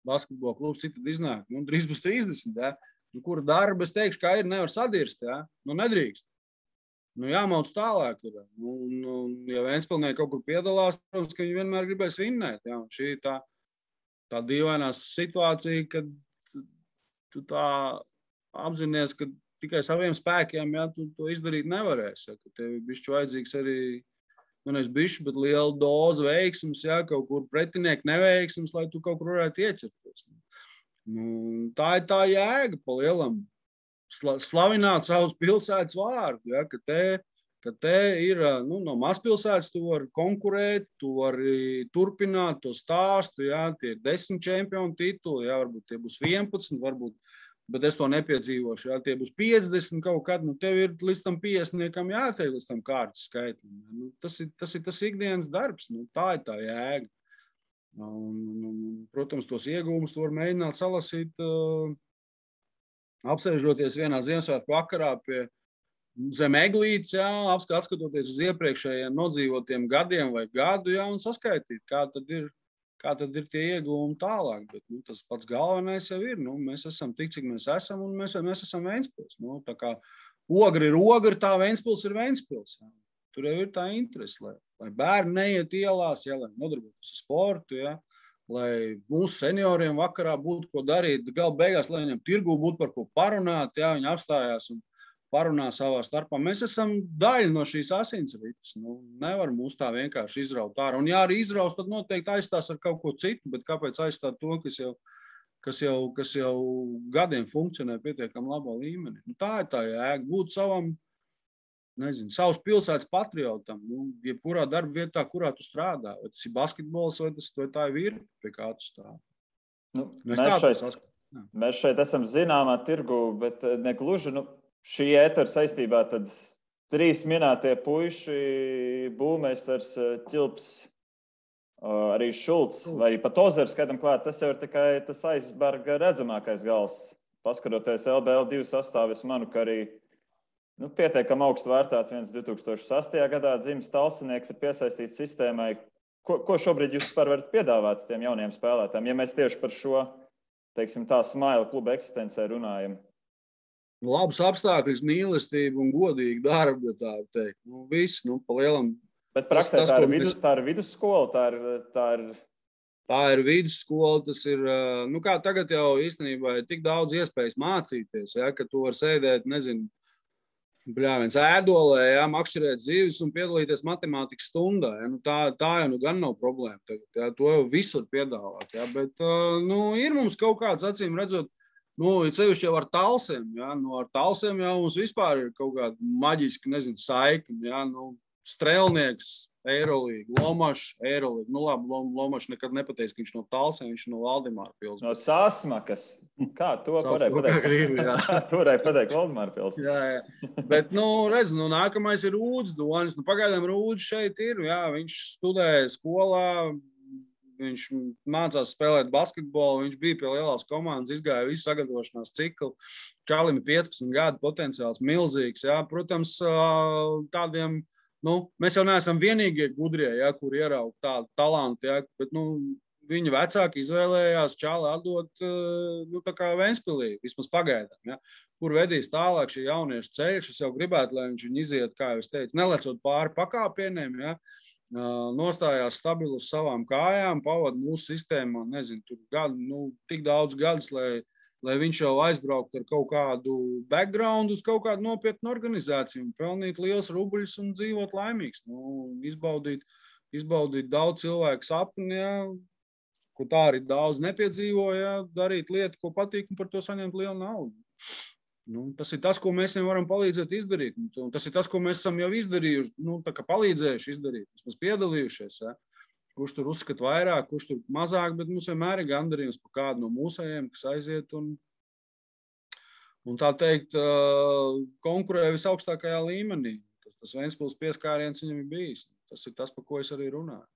basketbola klubs citad iznāk, drīz būs 30, ja, kura darba, es teikšu, kā ir, nevar sadirst, ja, nedrīkst. Jāmauc tālāk ir. Ja Ventspilnieki kaut kur piedalās, protams, ka viņi vienmēr gribēs vinnēt, ja, un šī tā dīvainā situācija, kad tu tā apzinies, ka tikai saviem spēkiem, ja, tu to izdarīt nevarēsi, ja, ka tev ir bišķi vajadzīgs arī nevis bišķi, bet liela doza veiksmes, ja, kaut kur pretinieki neveiksmes, lai tu kaut kur varētu ieķerties. Tā ir tā jēga pa lielam. Slavināt savus pilsētas vārdu, ja, ka te ir no mazpilsētas, tu vari konkurēt, tu vari turpināt to stāstu, ja, tie ir 10 čempionu tituli, ja, varbūt tie būs 11, varbūt, bet es to nepiedzīvošu, ja, tie būs 50 kaut kad, tev ir līdz tam 50 jātiek līdz tam kārtas skaitlim. Tas ir tas ikdienas darbs, tā ir tā jēga. Protams, tos iegūmus tu var mēģināt salasīt, apsēžoties vienā Ziemassvētku vakarā pie zem eglītes, ja, atskatoties uz iepriekšējiem nodzīvotiem gadiem vai gadu, ja, un saskaitīt, kā tad ir tie iegūmi tālāk. Bet tas pats galvenais jau ir. Mēs esam tik, cik mēs esam, un mēs esam Ventspils. Tā kā ogri ir ogri, tā Ventspils ir Ventspils. Ja. Tur jau ir tā interese, lai bērni neiet ielās, ja, lai nodarbotos ar sportu, ja, lai mūsu senioriem vakarā būtu ko darīt, gala beigās, lai viņam tirgū būtu par ko parunāt, ja, viņi apstājās un parunā savā starpā. Mēs esam daļa no šīs asinsrites. Nevar mūs tā vienkārši izraut ārā. Un ja arī izraust, tad noteikti aizstās ar kaut ko citu, bet kāpēc aizstāt to, kas jau gadiem funkcionē pietiekam labā līmenī? Tā ir tā jēga. Būt savam, savas pilsētas patriotam, jebkurā darba vietā, kurā tu strādā. Vai tas ir basketbols, vai tā ir virpa, pie kā tu strādā. Mēs šeit esam zināmā tirgu, bet negluži, šī ētera saistībā tad 3 minētie puiši, būvmeistars Ķilps, arī Šulcs, vai pat Ozers, skaidam klāt, tas jau ir tikai tas aizberga redzamākais gals. Paskaroties LBL 2 sastāvu, es manu, ka arī pietiekam augstu vērtāts viens 2008. Gadā dzimis talsinieks ir piesaistīts sistēmai. Ko šobrīd jūs vispār varat piedāvāt tiem jauniem spēlētājiem, ja mēs tieši par šo, teiksim, tā Smaila kluba eksistencē runājam? Labs apstākļus, mīlestību un godīgu darbu, tā teikt. Viss, pa lielam. Bet praksē tā ir vidusskola, Tā ir vidusskola, tas ir, kā tagad jau īstenībā ir tik daudz iespējas mācīties, ja, ka tu var sēdēt, Bļāviens ēdolē, jā, makšķerēt zivis un piedalīties matemātikas stundā. Jā. Nu, tā jau nu gan nav problēma. Tagad, jā. To jau visur piedāvāt. Jā. Bet ir mums kaut kāds, acīm redzot, cevišķi jau ar talsiem. Jā. Ar talsiem jau mums vispār ir kaut kāda maģiska, saikni. Jā. Strēlnieks, Eirolīga, Lomašs, Eirolīga. Labi, Lomašs nekad nepateiks, ka viņš no Talsiem, viņš no Valdemāra pils. No Sāsmakas. Kā to varēja pateikt? To varēja pateikt Valdemāra pils. Jā. Bet, redz, nākamais ir Rūdz Donis. Pagaidām Rūdz šeit ir, jā, viņš studēja skolā, viņš mācās spēlēt basketbolu, viņš bija pie lielās komandas, izgāja visu sagatavošanās ciklu. Čalim ir 15 gadu, potenciāls milzīgs, jā. Protams, tādiem mēs jau neesam vienīgie gudrie, ja, kur ieraug tādu talantu, ja, bet viņa vecāki izvēlējās Čāli atdot tā kā Ventspilī, vismaz pagaidām. Ja, kur vedīs tālāk šī jauniešu ceļš. Es jau gribētu, lai viņš viņu iziet, kā jau es teicu, nelecot pāri pakāpieniem, ja, nostājās stabilu uz savām kājām, pavada mūsu sistēmā, nezinu, tur gadu, tik daudz gadus, lai viņš jau aizbrauktu ar kaut kādu background uz kaut kādu nopietnu organizāciju un pelnītu liels rubļus un dzīvot laimīgs. Izbaudīt daudz cilvēku sapni, ja, ko tā arī daudz nepiedzīvo, ja, darīt lietu, ko patīk un par to saņemt lielu naudu. Tas ir tas, ko mēs viņam varam palīdzēt izdarīt. Tas ir tas, ko mēs esam jau izdarījuši, tā kā palīdzējuši izdarīt, mēs piedalījušies, ja. Kurš tur uzskata vairāk, kurš tur mazāk, bet mums vienmēr ir gandarījums par kādu no mūsējiem, kas aiziet un tā teikt, konkurē visaugstākajā līmenī. Tas Ventspils pieskāriens viņam ir bijis. Tas ir tas, par ko es arī runāju.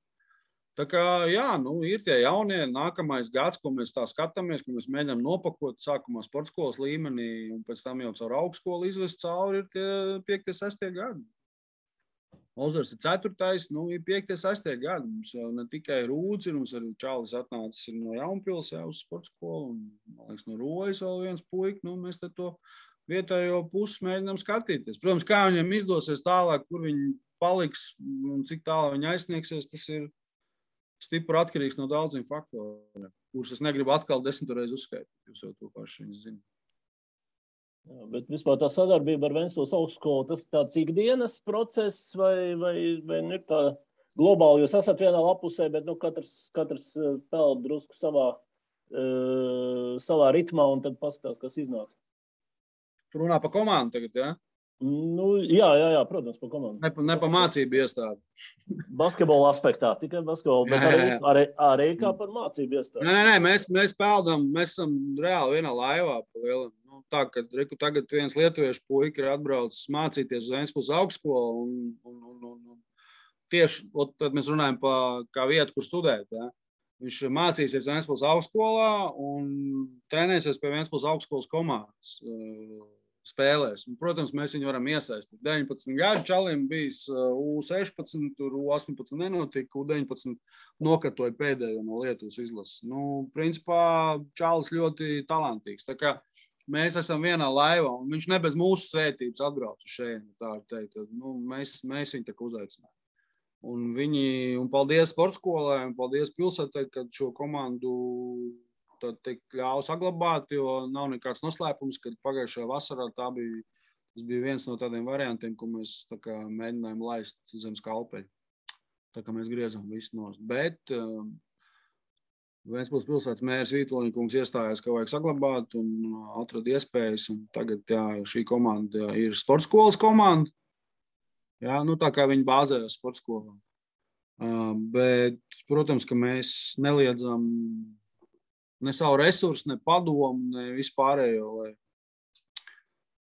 Tā kā, jā, ir tie jaunie nākamais gads, ko mēs tā skatāmies, ko mēs mēģinām nopakot sākumā sportskolas līmenī un pēc tam jau caur augstskolu izvest cauri ir tie 5. 6. gadi. Ozars ir 4. Ir 5. 6. gadi. Mums jau ne tikai Rūdz ir, mums arī Čālis atnācis no Jaunpils jau uz sportskolu un, man liekas, no Rojas vēl viens puika. Mēs te to vietējo pusi mēģinām skatīties. Protams, kā viņiem izdosies tālāk, kur viņi paliks un cik tālāk viņi aizsniegsies, tas ir stipri atkarīgs no daudziem faktoriem, kurus es negribu atkal 10 reizi uzskaitīt. Jūs jau to paši viņas zināt. Jā, bet vispār tā sadarbība ar Ventspils augstskolu, tas tāds ikdienas process vai ir tā globāli? Jūs esat vienā lapusē, bet katrs peld drusku savā ritmā un tad paskatās, kas iznāk. Tu runā par komandu tagad, jā? Jā, protams, par komandu. Ne par mācību iestādi. Basketbola aspektā, tikai basketbola, bet arī kā par mācību iestādi. Nē, mēs peldam, mēs esam reāli vienā laivā pa lielam. Tā, ka tagad viens lietuviešu puika ir atbraucis mācīties uz Ventspils augstskolu un tieši, tad mēs runājam par kā vietu, kur studēt, ja. Viņš mācīsies Ventspils augstskolā un trenēsies pie Ventspils augstskolas komandas spēlēs. Un, protams, mēs viņu varam iesaistīt. 19 gadu čalim bijis U16, tur U18 nenotika, U19 nokatoja pēdējo no Lietuvas izlases. Principā čalis ļoti talantīgs. Tā kā mēs esam vienā laivā, un viņš ne bez mūsu svētības atbrauc uz šeit, tā teikt. Mēs viņu tā uzaicinām. Un paldies sportskolai, un paldies pilsētai, kad šo komandu ļāva saglabāt, jo nav nekāds noslēpums, kad pagājušajā vasarā tas bija viens no tādiem variantiem, ko mēs tā kā mēģinājām laist zem skalpeļa. Tā kā mēs griezām visu nost. Bet Ventspils pilsētas mērs Vītoliņkungs iestājās, ka vajag saglabāt un atrada iespējas. Un tagad šī komanda ir sportskolas komanda. Jā, tā kā viņi bāzējas sportskolā. Bet, protams, ka mēs neliedzam ne savu resursu, ne padomu, ne vispārējo, lai,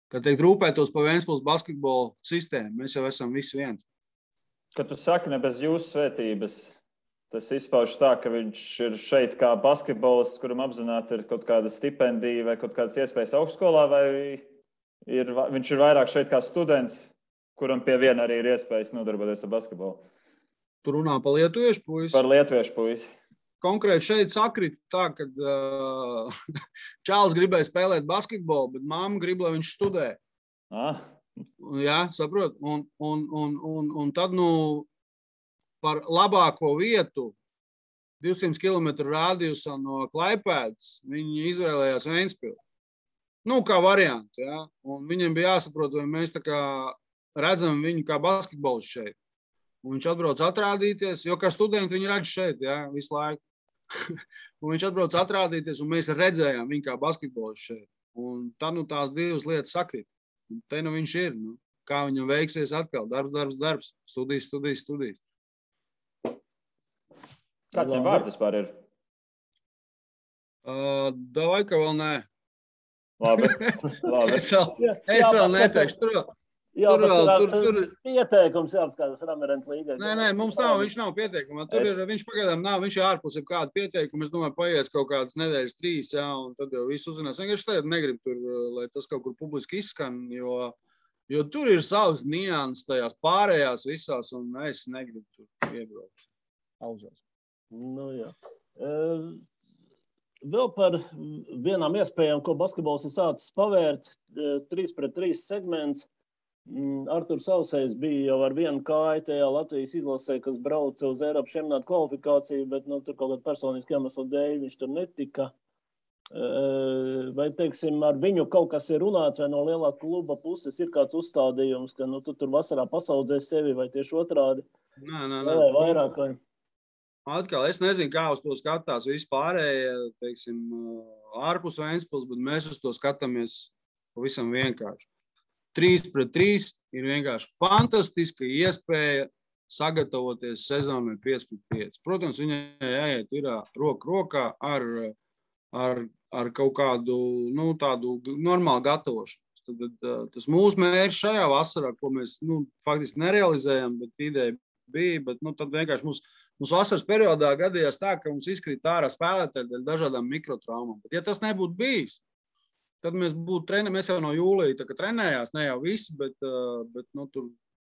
kā teikt, rūpētos par Ventspils basketbola sistēmu. Mēs jau esam visi viens. Kad tu saki ne bez jūsu svētības, tas izpaužas tā, ka viņš ir šeit kā basketbolists, kuram apzināti ir kaut kāda stipendija vai kaut kādas iespējas augstskolā, vai viņš ir vairāk šeit kā students, kuram pie viena arī ir iespējas nodarboties ar basketbolu? Tu runā par lietuviešu puisi? Par lietuviešu puisi. Konkrēti šeit sakrit tā, ka Čālis gribēja spēlēt basketbolu, bet mamma grib, lai viņš studē. Jā, saprot. Un tad, par labāko vietu 200 km rādījusā no Klaipēdas viņi izvēlējās Ventspilu. Nu, kā varianti, ja? Un viņiem bija jāsaprot, vai mēs tā kā redzam viņu kā basketbols šeit. Un viņš atbrauc atrādīties, jo kā studenti viņi redz šeit, ja, visu laiku. Un viņš atbrauc atrādīties, un mēs redzējām viņu kā basketbols šeit. Un tad nu tās divas lietas sakrīt. Un te nu viņš ir. Nu, kā viņam veiksies atkal? Darbs. Studijas. Kāds viņam vārds vispār ir? Davai, ka vēl nē. Labi. Es vēl neteikšu. Tur pieteikums jāapskatās Ramirent līgai. Nē, mums nav, viņš nav pieteikuma. Viņš pagaidām nav, viņš ir ārpus ir kādu pieteikumu. Es domāju, paies kaut kādas nedēļas 3, jā, un tad jau viss uzzinās. Vienkārši tagad negribu tur, lai tas kaut kur publiski izskan, jo tur ir savas nianses tajās pārējās visās, un es negribu tur iebraukt auzās. Nu, jā. Vēl par vienām iespējām, ko basketbols ir sācis pavērt, 3-3 segments. Arturs Sausējs bija jau ar vienu kāju tajā Latvijas izlasē, kas brauca uz Eiropas čempionāta kvalifikāciju, bet tur kaut kāda personiska iemesla dēļ viņš tur netika. Vai, teiksim, ar viņu kaut kas ir runāts, vai no lielā kluba puses ir kāds uzstādījums, ka tu tur vasarā pasaudzē sevi, vai tieši otrādi? Nē. Vairāk, vai? Atkal, es nezinu, kā uz to skatās vispārējie, teiksim, ārpus Ventspils, bet mēs uz to skatāmies pavisam vienkārši. 3-3 ir vienkārši fantastiska iespēja sagatavoties sezonai 5-5. Protams, viņai jāiet ir roku rokā ar kaut kādu, tādu normālu gatavošanos. Tad tas mūsu mērķis šajā vasarā, ko mēs, faktiski nerealizējam, bet ideja bija, bet, tad vienkārši mums vasaras periodā gadījās tā, ka mums izkrīt ārā spēlētāji dēļ dažādām mikrotraumām. Bet, ja tas nebūtu bijis, tad mēs jau no jūlija tā kā trenējās, ne jau visi, bet tur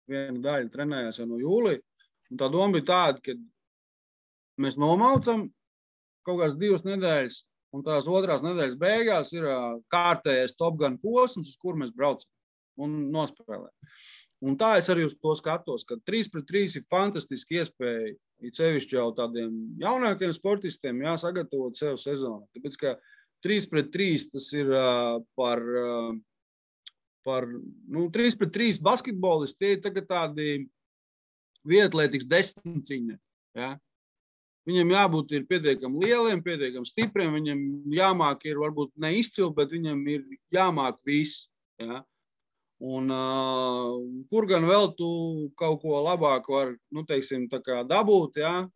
viena daļa trenējās jau no jūlija. Un tā doma bija tāda, ka mēs nomaucam kaut kādas 2 nedēļas, un tās otrās nedēļas beigās ir kārtējais Top Gun posms, uz kur mēs braucam un nospēlējam. Un tā es arī uz to skatos, ka 3-3 ir fantastiski iespēja, it sevišķi jau tādiem jaunākiem sportistiem, sagatavot sev sezonu. Tāpēc, ka 3-3 tas ir par 3-3 basketbolisti, tie ir tagad tādi vieglatlētikas desmitciņi. Ja? Viņam jābūt ir pietiekami lieliem, pietiekami stipriem, viņam jāmāk ir varbūt neizcili, bet viņam ir jāmāk viss. Ja? Un kur gan vēl tu kaut ko labāku var, teiksim, tā kā dabūt, ja?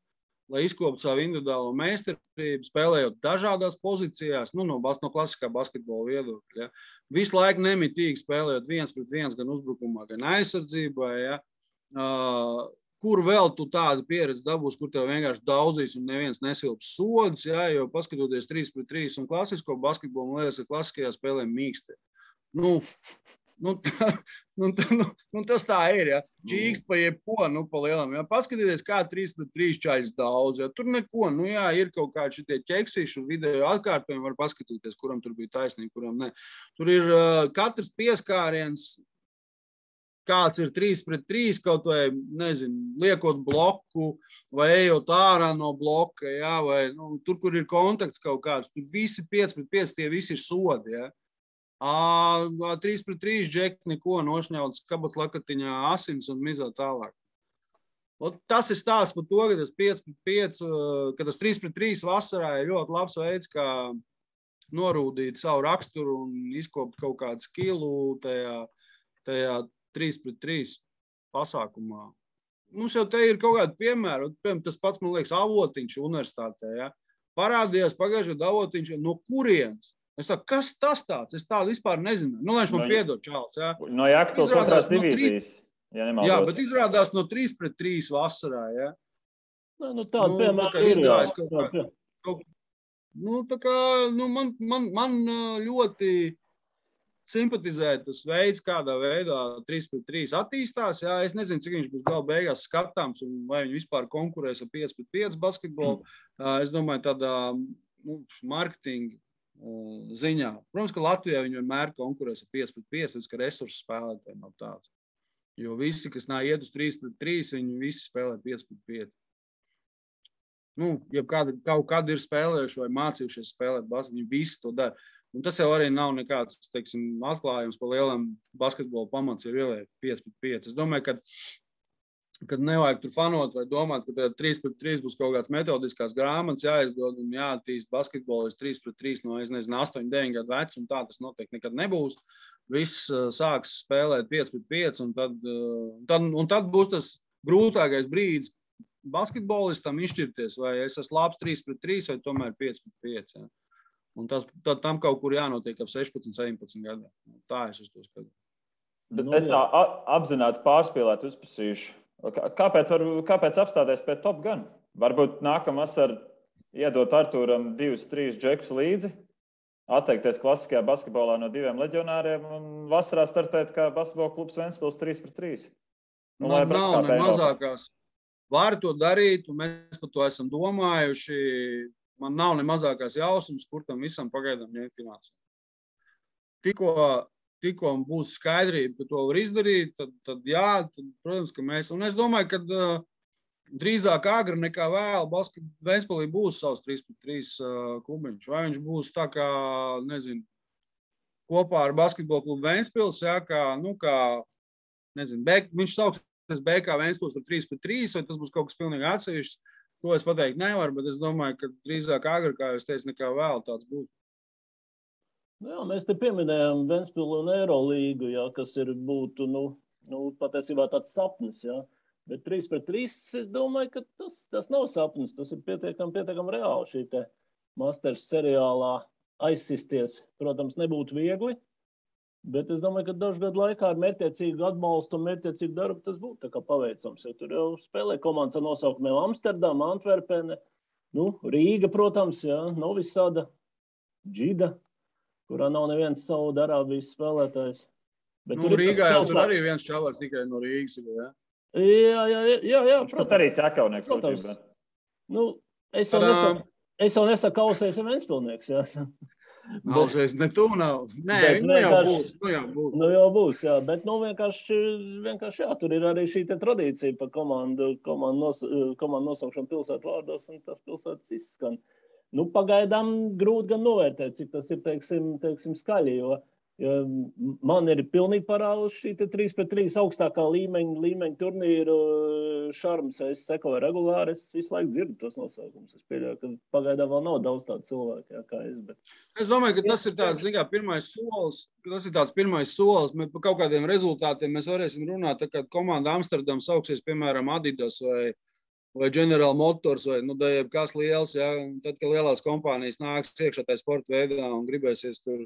Lai izkoptu savu individuālo meistarību, spēlējot dažādās pozīcijās, no klasiskā basketbola viedokļa. Ja. Visu laiku nemitīgi spēlējot 1-1 gan uzbrukumā, gan aizsardzībā. Ja. Kur vēl tu tādu pieredzi dabūsi, kur tev vienkārši daudzīs un neviens nesilps sodus, ja, jo paskatoties 3-3 un klasisko basketbolu, man liekas, ka klasiskajā spēlē mīksti. Tas tā ir, ja. Čīkst pa jebko, pa lielam. Ja. Paskatieties, kā 3-3 čaļas daudz. Ja. Tur neko, ir kaut kādi šitie ķeksīši un video atkārtojumi, var paskatīties, kuram tur bija taisnība, kuram ne. Tur ir katrs pieskāriens, kāds ir 3-3, kaut vai, liekot bloku vai ejot ārā no bloka, ja, vai tur, kur ir kontakts kaut kāds, tur visi 5-5, tie visi ir sodi, ja. 3-3 džeki neko nošņauts kabats lakatiņā asins un mizā tālāk. Tas ir stāsts par to, ka tas 5-5, ka tas 3-3 vasarā ir ļoti labs veids, kā norūdīt savu raksturu un izkopt kaut kādu skilu tajā 3-3 pasākumā. Mums jau te ir kaut kādi piemēri, tas pats, man liekas, Avotiņš universitātē, ja? Parādījās pagājušajā gadā Avotiņš, no kurienes? Es saku, kas tas tāds? Es tādu vispār nezinu. Viņš man piedod, čāls. Ja? No Jākapils otrās divīzijas. Jā, bet izrādās no 3-3 vasarā. Ja? Tāda piemēra ir. Man ļoti simpatizē tas veids, kādā veidā 3-3 attīstās. Ja? Es nezinu, cik viņš būs gala beigās skatāms un vai viņi vispār konkurēs ar 5-5 basketbolu. Es domāju, tādā marketinga ziņā. Protams, ka Latvijā viņi vienmēr konkurēs ar 5-5, ka resursu spēlētājiem nav tāds. Jo visi, kas iet uz 3-3, viņi visi spēlē 5-5. Ja kaut kādi ir spēlējuši vai mācījušies spēlēt basketbolu, viņi visi to dara. Un tas jau arī nav nekāds, teiksim, atklājums par lielam basketbola pamats ir ieliek 5-5. Es domāju, kad nevajag tur fanot vai domāt, ka 3-3 būs kaut kāds metodiskās grāmatas jāizdod un jāattīst basketbolis 3-3 no, 8-9 gadu vecu, un tā tas noteikti nekad nebūs. Viss sāks spēlēt 5-5, un tad būs tas grūtākais brīdis basketbolistam izšķirties, vai es esmu labs 3-3 vai tomēr 5-5. Ja. Un tad tam kaut kur jānotiek ap 16-17 gadiem. Tā es uz to skatos. Bet es tā apzināti pārspīlēt uzprasīšu. Kāpēc apstāties pie Top Gun? Varbūt nākamā vasarā iedot Artūram 2-3 džekus līdzi, atteikties klasiskajā basketbolā no 2 leģionāriem un vasarā startēt kā basketbola klubs Ventspils 3-3. Man nav ne mazākās. Var to darīt, un mēs par to esam domājuši. Man nav ne mazākās jausmas, kur tam visam pagaidām ņemt finansējumu. Tikko būs skaidrība, ka to var izdarīt, tad jā, protams, ka mēs. Un es domāju, ka drīzāk agri nekā vēl Ventspilī būs savs 3-3 klubiņš. Vai viņš būs tā kā, nezinu, kopā ar basketbola klubu Ventspils, jā, viņš sauksies BK Ventspils par 3-3, vai tas būs kaut kas pilnīgi atsevišķs. To es pateikt nevaru, bet es domāju, ka drīzāk agri, kā jūs teicu, nekā vēl tāds būs. Jā, mēs te pieminējām Ventspilu un Eirolīgu, jā, kas būtu, patiesībā tāds sapnis, jā. Bet 3-3, es domāju, ka tas nav sapnis, tas ir pietiekam reāli šī te Masters seriālā aizsisties. Protams, nebūtu viegli, bet es domāju, ka dažu gadu laikā ar mērķtiecīgu atbalstu un mērķtiecīgu darbu tas būtu tā kā paveicams, jo tur jau spēlē komandas ar nosaukumiem Amsterdama, Antverpene, Rīga, protams, jā, Novi Sada, Džida, kurā nav neviens Saudarābijas spēlētājs. Rīgā jau tur arī viens čavars tikai no Rīgas. Ja? Jā, protams. Arī Čakaunieks. Protams. Es jau nesaku kausējs un Ventspilnieks. Kausējs ne tu nav. Nē, jau būs. Jau būs, jā. Bet vienkārši jā, tur ir arī šī te tradīcija par komandu nosaukšanu pilsētu vārdos, un tas pilsētas izskan. Pagaidām grūti gan novērtēt, cik tas ir, teiksim skaļi, jo man ir pilnīgi parādus šī 3-3 augstākā līmeņa turnīru šarms. Es sekoju regulāri, es visu laiku dzirdu tos nosaukums. Es pieļauju, ka pagaidām vēl nav daudz tādu cilvēku, kā es. Bet... Es domāju, ka tas ir tāds, pirmais solis. Par kaut kādiem rezultātiem mēs varēsim runāt, tā kā komanda Amsterdam sauksies, piemēram, Adidas vai General Motors, vai kas liels, ja, tad, kad lielās kompānijas nāks iekšā tajā sporta veidā un gribēsies tur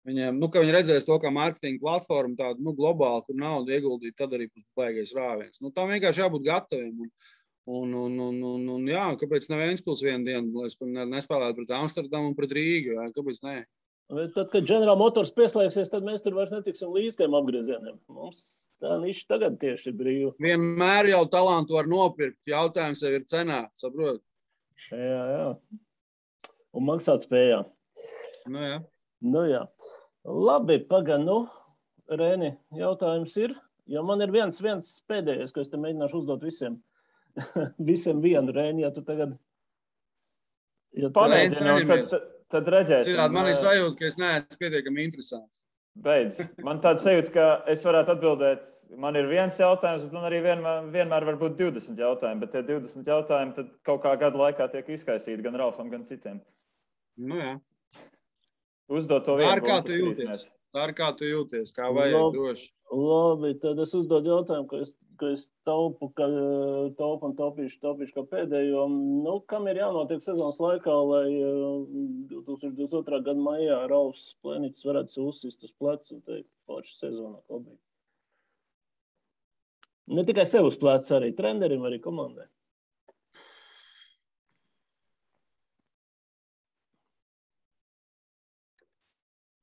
viņiem, ka viņi redzēs to kā mārketinga platformu tādu, globāli, kur naudu ieguldīt, tad arī būs baigais rāviens. Tam vienkārši jābūt gataviem. Un jā, kāpēc ne Ventspils vienu dienu, lai es nespēlētu pret Amsterdamu un pret Rīgu, jā, kāpēc ne? Tad, kad General Motors pieslēgsies, tad mēs tur vairs netiksim līdz tiem apgriezieniem. Mums tā niša tagad tieši ir brīva. Vienmēr jau talantu var nopirkt. Jautājums jau ir cenā, saprot? Jā. Un maksāt spējā. Jā. Jā. Labi, Rēni, jautājums ir, jo man ir viens pēdējais, ko es te mēģināšu uzdot visiem. Visiem vienu, Rēni, ja tu tagad... Pamēģināt, tad redzēsim. Citādi man ir sajūta, ka es neesmu pietiekami interesants. Beidz. Man tāda sajūta, ka es varētu atbildēt, man ir viens jautājums, bet man arī vienmēr var būt 20 jautājumi, bet tie 20 jautājumi tad kaut kā gadu laikā tiek izkaisīti gan Ralfam, gan citiem. Jā. Uzdot to vienu. Tā ir kā tu jūties, kā vajag droši. Labi, tad es uzdodu jautājumu, ka es taupu un taupīšu kā pēdējo. Kam ir jānotiek sezonas laikā, lai 2022. gada maijā Ralfs Plēniķis varētu sev uzsist uz plecu un teikt, forša sezonā klubī? Ne tikai sev uz plecu, arī trenerim, arī komandai.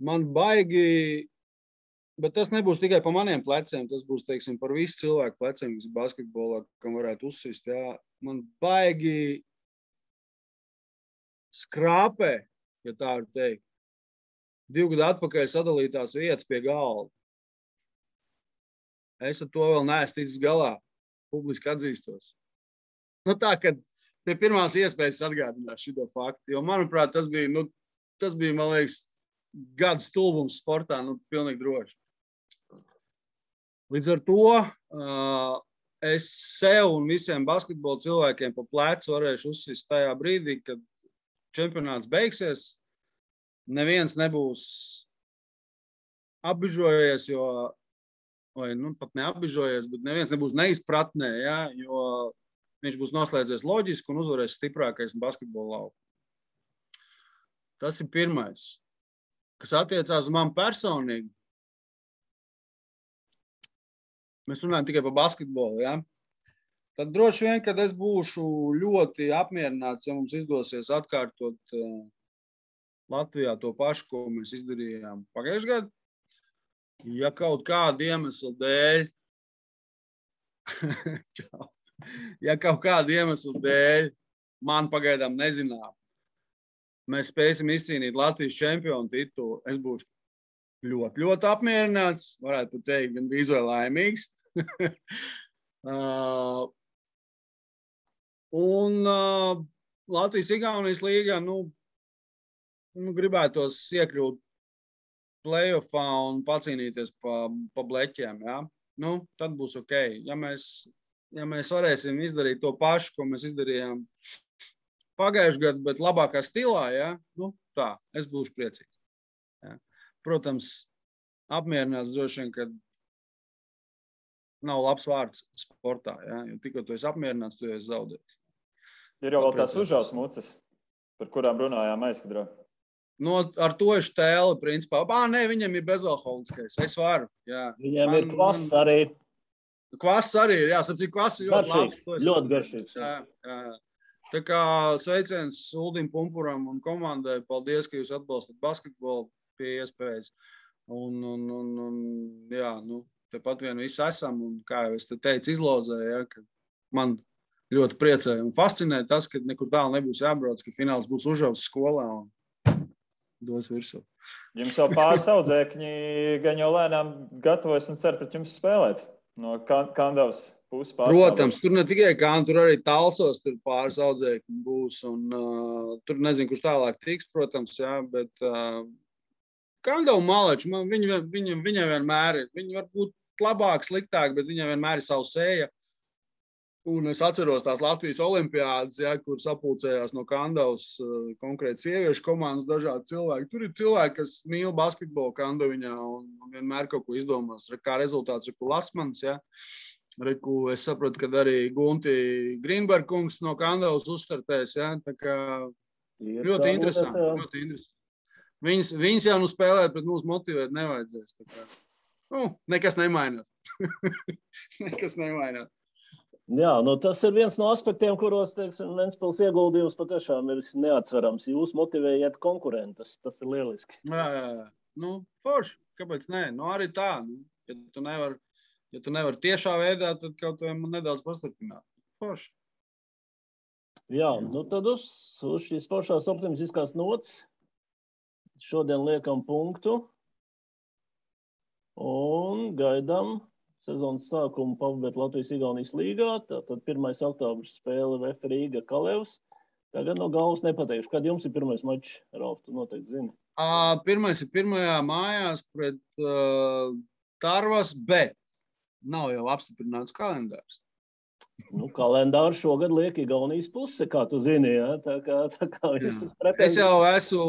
Man baigi, bet tas nebūs tikai pa maniem pleciem, tas būs, teiksim, par visu cilvēku pleciem, kas ir basketbolā, kam varētu uzsist, jā. Man baigi skrāpē, ja tā var teikt, 2 gadu atpakaļ sadalītās vietas pie galda. Es ar to vēl neesmu ticis galā, publiski atzīstos. Tā, kad pie pirmās iespējas atgādināt šito faktu, jo, manuprāt, tas bija, man liekas, gada stulbums sportā, pilnīgi droši. Līdz ar to es sev un visiem basketbola cilvēkiem pa plecu varēšu uzsist tajā brīdī, kad čempionāts beigsies. Neviens nebūs apbižojies, vai pat neapbižojies, bet neviens nebūs neizpratnē, ja, jo viņš būs noslēdzies loģiski un uzvarēs stiprākais basketbola lauku. Tas ir pirmais. Kas attiecās uz mani personīgi, mēs runājam tikai par basketbolu, ja? Tad droši vien, kad es būšu ļoti apmierināts, ja mums izdosies atkārtot Latvijā to pašu, ko mēs izdarījām pagājušajā gadā. Ja kaut kāda iemesla dēļ, man pagaidām nezinām, mēs spēsim izcīnīt Latvijas čempionu titulu, es būšu ļoti, ļoti apmierināts, varētu teikt, gan bija vai laimīgs. Latvijas-Igaunijas līgā, gribētos iekļūt playoffā un pacīnīties pa bleķiem, ja? Tad būs ok. Ja mēs varēsim izdarīt to pašu, ko mēs izdarījām pagājušajā gadā, bet labākā stilā, ja? Tā, es būšu priecīgs. Ja? Protams, apmierināts droši vien, kad nav labs vārds sportā, ja? Jo tikko tu esi apmierināts, tu esi zaudējis. Ir jau vēl tās Užavas muces, par kurām runājām aizkadrā. Ar to es tēlu, principā. Nē, viņam ir bezalkoholiskais. Es varu. Jā. Viņam ir kvass arī. Kvass arī ir, jā. Sapcīt, kvass ir ļoti labs. Ļoti garšīgs. Jā. Tā kā sveiciens Uldim Pumpuram un komandai. Paldies, ka jūs atbalstat basketbolu pie iespējas. Jā, tepat vien visi esam. Un kā jau es te teicu, izlozēju, ja, ka man ļoti priecēja un fascinē tas, ka nekur tālu nebūs jābrauc, ka fināls būs Užavas skolā un dos virsū. Jums jau pāris audzēkņi gan jau lēnām gatavojas un cer pret jums spēlēt no Kandavas puses. Protams, tur ne tikai Kandava, tur arī Talsos tur pāris audzēkņi būs. Un, tur nezinu, kurš tālāk tiks, protams, jā, bet Kandava Maleči, viņa vienmēr ir. Viņa var būt labāk, sliktāk, bet viņa vienmēr ir savu sēja. Un es atceros tās Latvijas olimpiādas, ja, kur sapulcējās no Kandavas konkrēti sieviešu komandas dažādi cilvēki. Tur ir cilvēki, kas mīl basketbolu Kandaviņā un vienmēr kaut ko izdomās. Kā rezultāts Riku Lasmans, ja. Riku, es saprotu, ka arī Gunti Grīnberg kungs no Kandavas uzstartēs, ja. Tā kā ļoti interesanti. Viņas jau spēlēt, bet mūs motivēt nevajadzēs. Tā kā, nekas nemainās. Nekas nemainās. Jā, tas ir viens no aspektiem, kuros, teiksim, Ventspils ieguldījums patiešām ir neatsverams. Jūs motivējat konkurentus, tas ir lieliski. Jā. Forši, kāpēc nē? Arī tā. Ja tu nevari tiešā veidā, tad kaut vai man nedaudz pastarpināt. Forši. Jā, tad uz šīs foršās optimistiskās nots šodien liekam punktu un gaidām sezonas sākumu pabeigt Latvijas-Igaunijas līgā. Tātad 1. oktobris spēle VF Rīga Kalevs. Tagad no galvas nepateikšu. Kad jums ir pirmais mačs, Ralf, tu noteikti zini? Pirmais ir pirmajā mājās pret Tarvas, bet nav jau apstiprināts kalendārs. Kalendārs šogad liek Igaunijas puse, kā tu zini, ja? Tā kā viss pretēji. Es jau esmu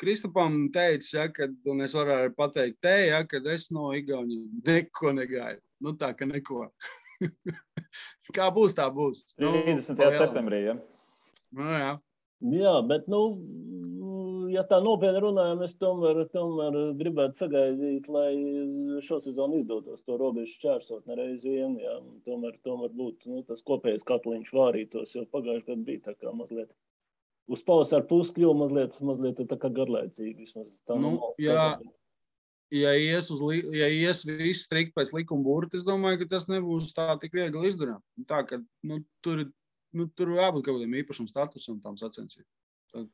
Kristupam teicis, ja, un es varu pateikt te, ja, kad es no Igaunijas neko negaidu. Tā, ka neko. Kā būs, tā būs. 30. septembrī, ja? Jā. Jā, bet, ja tā nopietni runājam, es tomēr gribētu sagaidīt, lai šo sezonu izdotos to robežu šķērsot nereiz vien, jā. Tomēr būtu tas kopējais katliņš vārītos, jo pagājuši gadu bija tā kā mazliet. Uz pavasaru pusi kļuva mazliet tā kā garlaicīgi. Ja ies viss strikt pēc likuma burta, es domāju, ka tas nebūs tā tik viegli izdarām. Tā, ka tur jābūt kaut kādiem īpašam statusam tām sacensībām.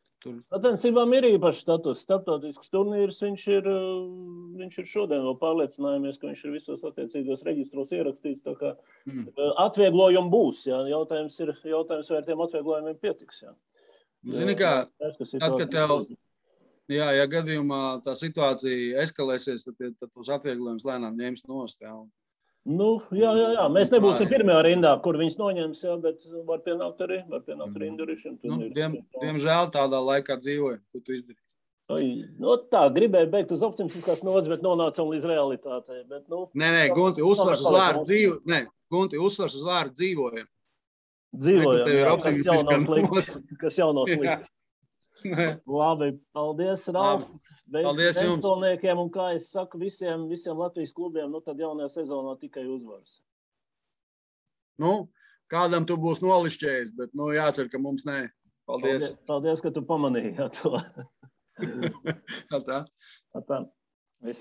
Sacensībām ir īpašs status. Starptautisks turnīrs, viņš ir šodien vēl pārliecinājāmies, ka viņš ir visos attiecīgos reģistros ierakstīts. Tā kā atvieglojumi būs. Jā. Jautājums, vai ar tiem atvieglojumiem pietiks. Jā. Zini kā, tad, kad Jā, ja gadījumā tā situācija eskalēsies, tad tos atvieglojumus lēnām ņems nost. Jā. Nu, jā. Mēs nebūsim pirmajā rindā, kur viņus noņems, jā, bet var pienākt arī Indurišiem. Diemžēl tādā laikā dzīvoju, ko tu izdarīsi. Tā, gribēju beigt uz optimistiskās nodas, bet nonācam līdz realitātei. Bet, Nē, Gunti, uzsvars uz vārdu dzīvoju. Nē, Gunti, uzsvars uz vārdu dzīvojam. Dzīvojam, jā, kas jau nav slikti. Labi, paldies, Ralf. Paldies jums. Un, kā es saku, visiem Latvijas klubiem, tad jaunajā sezonā tikai uzvaras. Kādam tu būs nolišķējis, bet jācer, ka mums nē. Paldies. Paldies, ka tu pamanīji to. Tā.